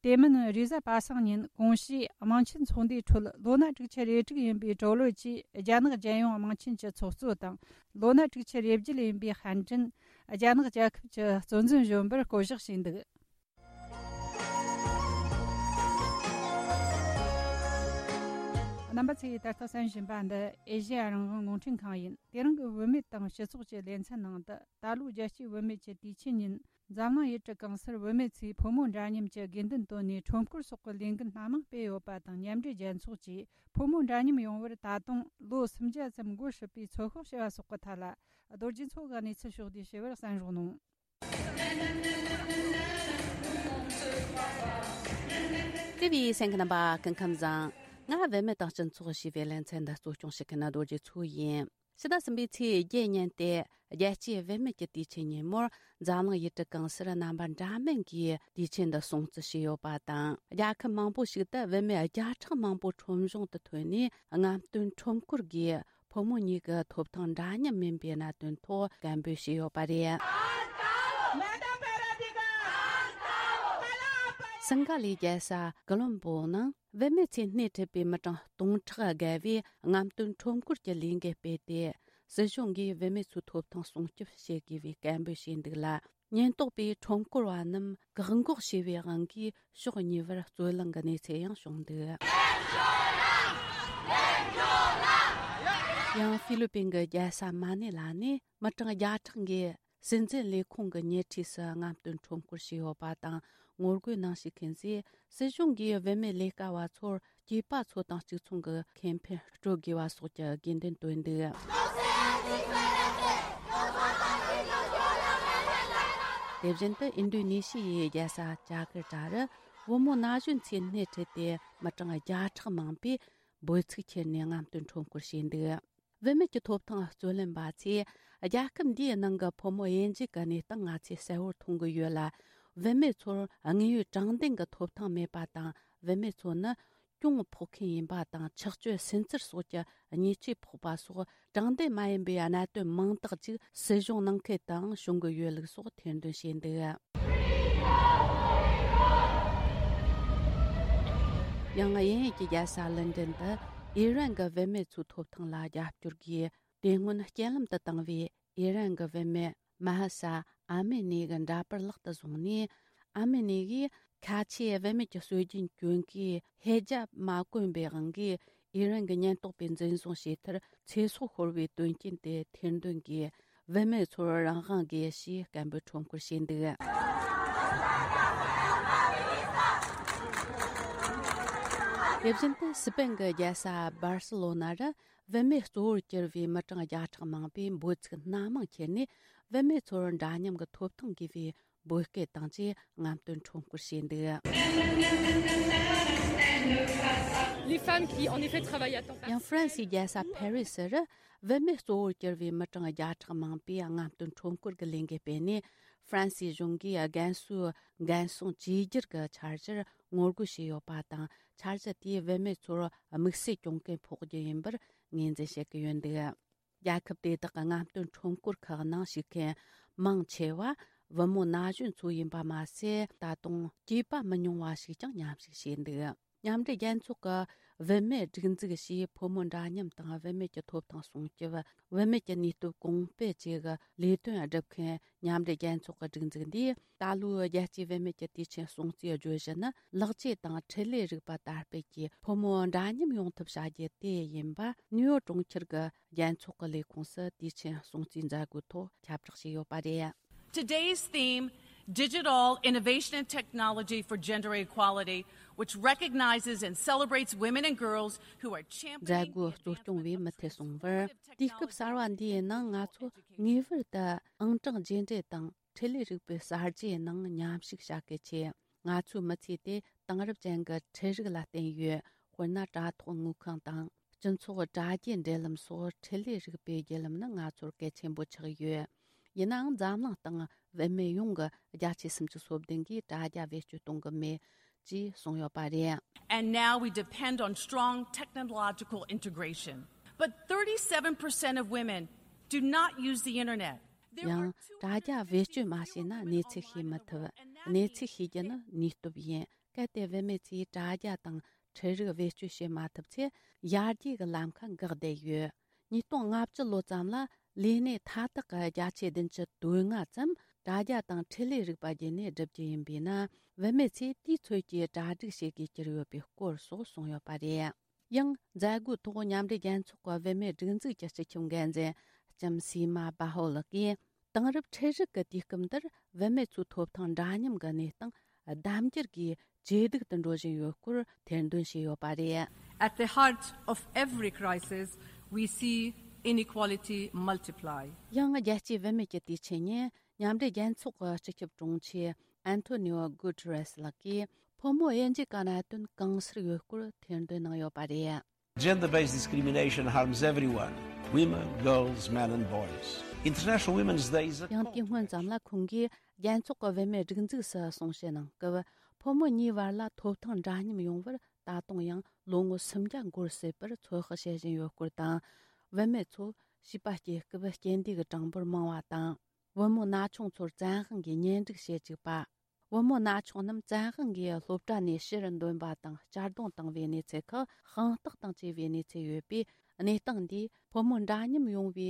དེ་མིན་རེས་གཟའ་པ་སངས་ཉིན་གོང་ཞུས་དམངས་ཆེན་ཚོགས་འདུའི་ཁྲོད་ལོ་ན་དྲུག་ཅུ་རེ་དྲུག་ཡིན་པའི་ཀྲོའུ་ལི་ཅིས་རྒྱ་ནག་རྒྱལ་ཡོངས་དམངས་ཆེན་གྱི་ཚོགས་གཙོ་དང་། ལོ་ན་དྲུག་ཅུ་རེ་བརྒྱད་ཡིན་པའི་ཧན་ཀྲིན་རྒྱ་ནག་རྒྱལ་ཁབ་ཀྱི་གཙོ་འཛིན་གཞོན་པར་བསྐོ་གཞག་བྱས་འདུག་རྣམ་པ་ཚོས་ད་ལྟ་གསན་བཞིན་པ་འདི་ཨེ་ཤེ་ཡ་རང་དབང་རླུང་འཕྲིན་ཁང་ཡིན། དེ་རིང་གི་བུད་མེད་དང་སྤྱི་ཚོགས་ཀྱི་ལེ་ཚན་ནང་དུ། ད་ལོའི་རྒྱལ་སྤྱིའི་བུད་མེད་ཀྱི་དུས་ཆེན་ཉིན། འཛམ་གླིང་ཡུལ་གྲུ་གང་སར་བུད་མེད་ཚོས་ཕོ་མོ་འདྲ་མཉམ་གྱི་དགོས་འདུན་བཏོན་ནས། ཁྲོམ་སྐོར་སོགས་ཀྱི་ལས་འགུལ་སྣ་མང་སྤེལ་ཡོད་པ་དང་། མཉམ་འབྲེལ་རྒྱལ་ཚོགས་ཀྱིས་ཕོ་མོ་འདྲ་མཉམ་ཡོང་བར་ད་དུང་ལོ་སུམ་བརྒྱ་ཙམ་འགོར་སྲིད་པའི་ཚོད་དཔག་བྱས་པ་སོགས་ཀྱི་ཐད་ལ། རྡོ་རྗེ་མཚོ་གིས་གནས་ཚུལ་ཕྱོགས་བསྡུས་ཞུས་པར་གསན་རོགས་གནང་། དེ་བས་གསན་མཁན་རྣམ་པ་སྐུ་ཁམས་བཟང་། ང་བུད་མེད་དང་སྤྱི་ཚོགས་ཞེས་པའི་ལེ་ཚན་འདི་གཙོ་སྐྱོང་བྱེད་མཁན་རྡོ་རྗེ་མཚོ་ཡིན། ཕྱི་ཟླ་གསུམ་པའི་ཚེས་བརྒྱད་ཉིན་ཏེ། རྒྱལ་སྤྱིའི་བུད་མེད་ཀྱི་དུས་ཆེན་ཉིན་མོར། འཛམ་གླིང་ཡུལ་གྲུ་གང་སར་རྣམ་པ་འདྲ་མིན་གྱིས་དུས་ཆེན་འདི་སྲུང་བརྩི་བྱས་ཡོད་པ་དང་། རྒྱལ་ཁབ་མང་པོ་ཞིག་ཏུ་བུད་མེད་བརྒྱ་ཕྲག་མང་པོ་ཁྲོམ་གཞུང་དུ་ཐོན་ནས། རྔམ་སྟོན་ཁྲོམ་སྐོར་སྒོས་ཕོ་མོ་གཉིས་ཀྱི་ཐོབ་ཐང་འདྲ་མཉམ་མིན་པའི་གནད་དོན་ཐོག་སྐད་འབོད་བྱས་ཡོད་པ་རེད། སིང་ག་ལའི་རྒྱལ་ས་ཀོ་ལོམ་པོ་ནང་། བུད་མེད་ཚོས་སྣེ་ཁྲིད་པའི་མི་གྲངས་སྟོང་ཕྲག་བརྒལ་བས་རྔམ་སྟོན་ཁྲོམ་སྐོར་གྱི་ལས་འགུལ་སྤེལ་ཏེ། སྲིད་གཞུང་གིས་བུད་མེད་ཚོའི་ཐོབ་ཐང་སྲུང་སྐྱོབ་བྱེད་དགོས་པའི་སྐད་འབོད་བྱས་འདུག་ལ། ཉེན་རྟོག་པས་ཁྲོམ་སྐོར་བ་རྣམས་བཀག་འགོག་བྱས་པའི་དབང་གིས། ཕྱོགས་གཉིས་བར་རྩོད་གླེང་གི་གནས་ཚུལ་ཡང་བྱུང་འདུག་ཡང་ཧྥི་ལི་པིན་གྱི་རྒྱལ་ས་མ་ནི་ལ་ནས་མི་གྲངས་བརྒྱ་ཕྲག་འགས། སྲིད་འཛིན་ལས་ཁུངས་ཀྱི་ཉེ་འཁྲིས་སུ་རྔམ་སྟོན་ཁྲོམ་སྐོར་བྱས་ཡོད་པ་དང་། ངོ་རྒོལ་གནང་བཞིན་མཁན་ཚོས། སྲིད་གཞུང་གིས་བུད་མེད་ལས་ཀ་བ་ཚོར་སྐྱེས་པ་ཚོ་དང་གཅིག་མཚུངས་ཀྱི་ཁེ་ཕན་སྤྲོད་དགོས་པ་སོགས་ཀྱི་དགོས་འདུན་བཏོན་འདུག་དེ་བཞིན་དུ་ཨིན་ཌོ་ནེ་ཤི་ཡའི་རྒྱལ་ས་ཇ་ཀར་ཏ་རུ། བུ་མོ་ན་གཞོན་ཚོས་སྣེ་ཁྲིད་དེ། མི་གྲངས་བརྒྱ་ཕྲག་མང་པོས་འབོད་ཚིག་ཁྱེར་ནས་རྔམ་སྟོན་ཁྲོམ་སྐོར་བྱས་འདུག་བུད་མེད་ཀྱི་ཐོབ་ཐང་རྩོད་ལེན་པ་ཚོས། རྒྱལ་ཁབ་འདིའི་ནང་གི་ཕོ་མོ་དབྱེ་འབྱེད་ཀྱི་གནས་སྟངས་ང་ཚོས་གསལ་བོར་མཐོང་གི་ཡོད་ལ། བུད་མེད་ཚོར་དངོས་ཡོད་དྲང་བདེན་གྱི་ཐོབ་ཐང་མེད་པ་དང་། བུད་མེད་ཚོ་ནི་གྱོང་ཕོག་མཁན་ཡིན་པ་དང་། ཆགས་སྤྱོད་སུན་གཙེར་སོགས་ཀྱི་ཉེས་ཆད་ཕོག་པ་སོགས། དྲང་བདེན་མ་ཡིན་པའི་གནད་དོན་མང་དག་ཅིག་སྲིད་གཞུང་ནང་ཁུལ་དུའང་བྱུང་གི་ཡོད་ལུགས་སོགས་ཐེར་འདོན་བྱས་འདུག་ཡང་དབྱིན་ཡུལ་གྱི་རྒྱལ་ས་ལན་ཀྲན་དུ་ཨི་རན་གྱི་བུད་མེད་ཚོའི་ཐོབ་ཐང་ལ་རྒྱབ་སྐྱོར་སྒོས་དེ་སྔོན་རྐྱེན་ལམ་དུ་བཏང་བའི་ཨི་རན་གྱི་བུད་མེད་མ་ཧ་ས་ཨ་མི་ནི་གི་འདྲ་པར་ལག་ཏུ་བཟུང་ནས། ཨ་མི་ནི་གིས་ཁ་ཆེའི་བུད་མེད་ཀྱི་སྲོལ་རྒྱུན་གྱོན་གོས་ཧེ་ཇབ་མ་གོན་པའི་དབང་གིས་ཨི་རན་གྱི་ཉེན་རྟོག་པས་འཛིན་བཟུང་བྱས་མཐར་ཚེ་སྲོག་ཤོར་བའི་དོན་རྐྱེན་དེ་ཐེར་འདོན་གྱིས། བུད་མེད་ཚོར་རང་དབང་དགོས་ཞེས་སྐད་འབོད་ཁྲོམ་སྐོར་བྱས་འདུག་དེ་བཞིན་དུ་སི་པེན་གྱི་རྒྱལ་ས་སྦར་སི་ལོ་ན་རུ་བུད་མེད་གཙོ་བོར་གྱུར་བའི་མི་གྲངས་བརྒྱ་ཕྲག་མང་པོས་འབོད་ཚིག་སྣ་མང་ཁྱེར་ནས། བུད་མེད་ཚོར་འདྲ་མཉམ་གྱི་ཐོབ་ཐང་དགོས་པའི་འབོད་སྐུལ་དང་བཅས་རྔམ་སྟོན་ཁྲོམ་སྐོར་བྱས་འདུག Les femmes qui, en effet, travaillent à temps partiel. ཡང་ཧྥ་རན་སིའི་རྒྱལ་ས་ཕ་རི་སི་རུ་བུད་མེད་གཙོ་བོར་གྱུར་བའི་མི་གྲངས་བརྒྱ་ཕྲག་མང་པོས་རྔམ་སྟོན་ཁྲོམ་སྐོར་གྱི་ལས་འགུལ་སྤེལ་ནས། ཧྥ་རན་སིའི་གཞུང་གིས་རྒན་གསོའི་འགན་སྲུང་བཅོས་བསྒྱུར་གྱི་འཆར་གཞིར་ངོ་རྒོལ་བྱས་ཡོད་པ་དང་། འཆར་གཞི་དེས་བུད་མེད་ཚོར་དམིགས་བསལ་གྱོང་གུན་ཕོག་རྒྱུ་ཡིན་པར་ངོས་འཛིན་བྱེད་ཀྱི་ཡོད་འདུག་རྒྱལ་ཁབ་དེ་དག་གི་རྔམ་སྟོན་ཁྲོམ་སྐོར་ཁག་ནང་ཞུགས་མཁན་མང་ཆེ་བ་བུ་མོ་ན་གཞོན་ཚོ་ཡིན་པ་མ་ཟད། ད་དུང་སྐྱེས་པ་མི་ཉུང་བ་ཞིག་ཀྱང་མཉམ་ཞུགས་བྱས་འདུག་མཉམ་འབྲེལ་རྒྱལ་ཚོགས་ཀྱི་བུད་མེད་སྒྲིག་འཛུགས་ཀྱིས་ཕོ་མོ་འདྲ་མཉམ་དང་བུད་མེད་ཀྱི་ཐོབ་ཐང་སྲུང་སྐྱོབ། བུད་མེད་ཀྱི་ནུས་སྟོབས་གོང་སྤེལ་བཅས་ཀྱི་ལས་དོན་སྒྲུབ་མཁན་མཉམ་འབྲེལ་རྒྱལ་ཚོགས་ཀྱི་སྒྲིག་འཛུགས་འདིས། ད་ལོའི་རྒྱལ་སྤྱིའི་བུད་མེད་ཀྱི་དུས་ཆེན་སྲུང་བརྩིའི་བརྗོད་གཞི་ནི། ལེགས་བཅོས་དང་འཕྲིན་ལས་རིག་པ་དར་སྤེལ་གྱིས་ཕོ་མོ་འདྲ་མཉམ་ཡོང་ཐབས་བྱ་རྒྱུ་དེ་ཡིན་པ། ནིའུ་ཡོག་གྲོང་ཁྱེར་གྱི་རྒྱལ་ཚོགས་ཀྱི་ལས་ཁུངས་སུ་དུས་ཆེན་སྲུང་བརྩིའི་མཛད་སྒོའི་ཐོག་ཁྱབ་བསྒྲགས་བྱས་ཡོད་པ་རེད། Today's theme, Digital Innovation and Technology for Gender Equality, which recognizes and celebrates women and girls who are championing མཛད་སྒོ་གཙོ་སྐྱོང་བས་མུ་མཐུད་གསུངས་པར། དུས་སྐབས་གསར་བ་འདིའི་ནང་ང་ཚོ་ངེས་པར་དུ་ཨང་གྲངས་རྗེས་འབྲེལ་དང་འཕྲིན་ལས་རིག་པའི་གསར་བརྗེའི་ནང་མཉམ་ཞུགས་བྱ་གལ་ཆེ། ང་ཚོའི་མི་ཚེ་དེ་དེང་རབས་ཅན་གྱི་འཕྲུལ་རིག་ལ་བརྟེན་ཡོད། དཔེར་ན་དྲ་ཐོག་དངུལ་ཁང་དང་། སྤྱི་ཚོགས་དྲ་རྒྱའི་འབྲེལ་ལམ་སོགས་འཕྲིན་ལས་རིག་པའི་བརྒྱུད་ལམ་ནི་ང་ཚོར་གལ་ཆེན་པོ་ཆགས་ཡོད། ཡིན་ནའང་། འཛམ་གླིང་སྟེང་བུད་མེད་ཡོངས་ཀྱི་བརྒྱ་ཆ་སུམ་ཅུ་སོ་བདུན་གིས་དྲ་རྒྱ་བེད་སྤྱོད་གཏོང་གི་མེད་ཅེས་གསུངས་ཡོད་པ་རེད། And now we depend on strong technological integration. But thirty-seven percent of women do not use the internet. ཡང་དྲ་རྒྱ་བེད་སྤྱོད་མ་བྱས་ན་གནས་ཚུལ་ཤེས་མི་ཐུབ། གནས་ཚུལ་ཤེས་རྒྱུ་ནི་ནུས་སྟོབས་ཡིན། གལ་ཏེ་བུད་མེད་ཚོས་དྲ་རྒྱ་དང་འཕྲུལ་རིག་བེད་སྤྱོད་བྱེད་མ་ཐུབ་ཚེ། ཡར་རྒྱས་ཀྱི་ལམ་ཁ་འགག་བསྡད་ཡོད། ཉིས་སྟོང་ལྔ་བཅུ་ལོ་ཙམ་ལ་ལས་གནས་མཐའ་དག་གི་བརྒྱ་ཆ་བདུན་ཅུ་དོན་ལྔ་ཙམ་དྲ་རྒྱ་དང་འཕྲིན་ལས་རིག་པ་བརྒྱུད་ནས་བསྒྲུབ་རྒྱུ་ཡིན་པས་ན། བུད་མེད་ཚོས་དུས་ཚོད་ཀྱིས་གྲ་སྒྲིག་བྱེད་དགོས་ཀྱི་ཡོད་པའི་སྐོར་སོགས་གསུངས་ཡོད་པ་རེད། ཡང་། མཛད་སྒོའི་ཐོག་མཉམ་འབྲེལ་རྒྱལ་ཚོགས་ཀྱི་བུད་མེད་སྒྲིག་འཛུགས་ཀྱི་སྤྱི་ཁྱབ་འགན་འཛིན་ལྕམ་སི་མ་བྷ་ཧོ་ལགས་ཀྱིས། དེང་རབས་འཕྲུལ་རིག་གི་དུས་སྐབས་འདིར་བུད་མེད་ཚོའི་ཐོབ་ཐང་འདྲ་མཉམ་གྱི་གནས་སྟངས་ལྡབ་འགྱུར་གྱིས་ཇེ་སྡུག་ཏུ་འགྲོ་བཞིན་ཡོད་སྐོར་ཐེར་འདོན་བྱས་ཡོད་པ་རེད། At the heart of every crisis, we see inequality multiply. ཡང་། རྒྱལ་སྤྱིའི་བུད་མེད་ཀྱི་དུས་ཆེན་ཉིན། མཉམ་འབྲེལ་རྒྱལ་ཚོགས་ཀྱི་སྤྱི་ཁྱབ་དྲུང་ཆེ་ཨན་ཐོ་ནིའོ་གུ་ཏེ་རེས་ལགས་ཀྱིས། ཕོ་མོ་དབྱེ་འབྱེད་ཀྱི་གནད་དོན་གང་སར་ཡོད་སྐོར་ཐེར་འདོན་གནང་ཡོད་པ་རེད། Gender-based discrimination harms everyone, women, girls, men and boys. International Women's Day is a ཡང་དེའི་སྔོན་ཙམ་ལ་ཁོང་གིས་རྒྱལ་ཚོགས་ཀྱི་བུད་མེད་སྒྲིག་འཛུགས་སུ་གསུང་བཤད་གནང་སྐབས། ཕོ་མོ་གཉིས་བར་ལ་ཐོབ་ཐང་འདྲ་མཉམ་ཡོང་བར་ད་དུང་ཡང་ལོ་ངོ་སུམ་བརྒྱ་འགོར་སྲིད་པར་ཚོད་དཔག་བྱེད་བཞིན་ཡོད་སྐོར་དང་། བུད་མེད་ཚོ་བྱིས་པ་སྐྱེ་སྐབས་རྐྱེན་འདས་ཀྱི་གྲངས་འབོར་མང་བ་དང་། བུ་མོ་ན་ཆུང་ཚོར་བཙན་དབང་གིས་གཉེན་སྒྲིག་བྱེད་བཅུག་པ། བུ་མོ་ན་ཆུང་རྣམས་བཙན་དབང་གིས་སློབ་གྲྭ་ནས་ཕྱིར་འདོན་པ་དང་གཅར་རྡུང་བཏང་བའི་གནས་ཚུལ་ཁག་དཔང་རྟགས་དང་བཅས་པའི་གནས་ཚུལ་ཡོད་པས། གནས་སྟངས་འདིས་ཕོ་མོ་འདྲ་མཉམ་ཡོང་བའི་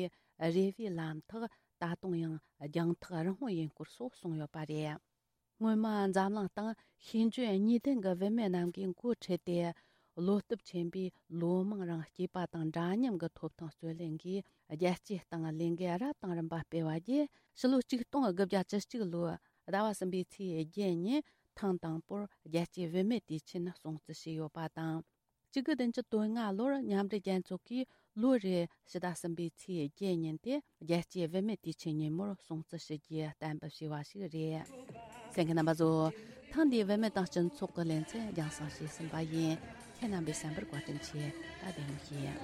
རེ་བའི་ལམ་ཐག་ད་དུང་ཡང་རྒྱང་ཐག་རིང་བོ་ཡིན་སྐོར་སོགས་གསུངས་ཡོད་པ་རེད། སྔོན་མ་འཛམ་གླིང་སྟེང་ཤེས་འཇོན་གཉིས་ལྡན་གྱི་བུད་མེད་རྣམས་ཀྱིས་འགོ་ཁྲིད་དེ། བློ་སྟོབས་ཆེན་པོས་ལོ་མང་རིང་སྐྱེས་པ་དང་འདྲ་མཉམ་གྱི་ཐོབ་ཐང་རྩོད་ལེན་གྱིས་རྒྱལ་སྤྱིའི་སྟེང་ལས་འགུལ་རབ་དང་རིམ་པ་སྤེལ་བ་བརྒྱུད། ཕྱི་ལོ་ཆིག་སྟོང་དགུ་བརྒྱ་བཅུ་གཅིག་ལོའི་ཟླ་བ་གསུམ་པའི་ཚེས་བརྒྱད་ཉིན་ཐེངས་དང་པོར་རྒྱལ་སྤྱིའི་བུད་མེད་དུས་ཆེན་སྲུང་བརྩི་བྱས་ཡོད་པ་དང་། བཅུ་དགུ་བདུན་ཅུ་དོན་ལྔ་ལོར་མཉམ་འབྲེལ་རྒྱལ་ཚོགས་ཀྱིས་ལོ་རེའི་ཕྱི་ཟླ་གསུམ་པའི་ཚེས་བརྒྱད་ཉིན་དེ་རྒྱལ་སྤྱིའི་བུད་མེད་དུས་ཆེན་ཉིན་མོར་སྲུང་བརྩི་ཞུ་རྒྱུའི་གཏན་འབེབས་བྱས་པ་ཞིག་རེད། གསན་མཁན་རྣམ་པ་ཚོ། ཐེངས་འདིའི་བུད་མེད་དང་སྤྱི་ཚོགས་ཀྱི་ལེ་ཚན་རྒྱང་སྲིང་བྱས་ཟིན་པ་ཡིན། ཁྱེད་རྣམ་པས་གསན་པར་བཀའ་དྲིན་ཆེ། ད་བདེ་མོ་བྱོས།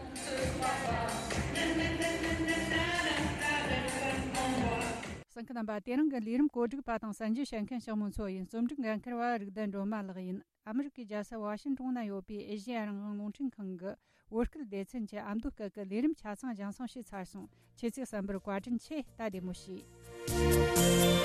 གསན་མཁན་རྣམ་པ། དེ་རིང་གི་ལས་རིམ་གོ་སྒྲིག་པ་དང་གསན་རྒྱུ་བྱེད་མཁན་ཞིང་མོ་མཚོ་ཡིན། རྩོམ་སྒྲིག་འགན་འཁུར་བ་རིག་ལྡན་སྒྲོལ་མ་ལགས་ཡིན། ཨ་མི་རི་ཀའི་རྒྱལ་ས་ཝ་ཤིན་ཏོན་ན་ཡོད་པའི་ཨེ་ཤེ་ཡ་རང་དབང་རླུང་འཕྲིན་ཁང་གི་བོད་སྐད་སྡེ་ཚན་གྱི་ཨ་མདོ་སྐད་ཀྱི་ལས་རིམ་ཆ་ཚང་རྒྱང་སྲིང་བྱས་ཚར་སོང་། ཁྱེད་ཚོས་གསན་པར་བཀའ་དྲིན་ཆེ། ད་བདེ་མོ་བྱོས།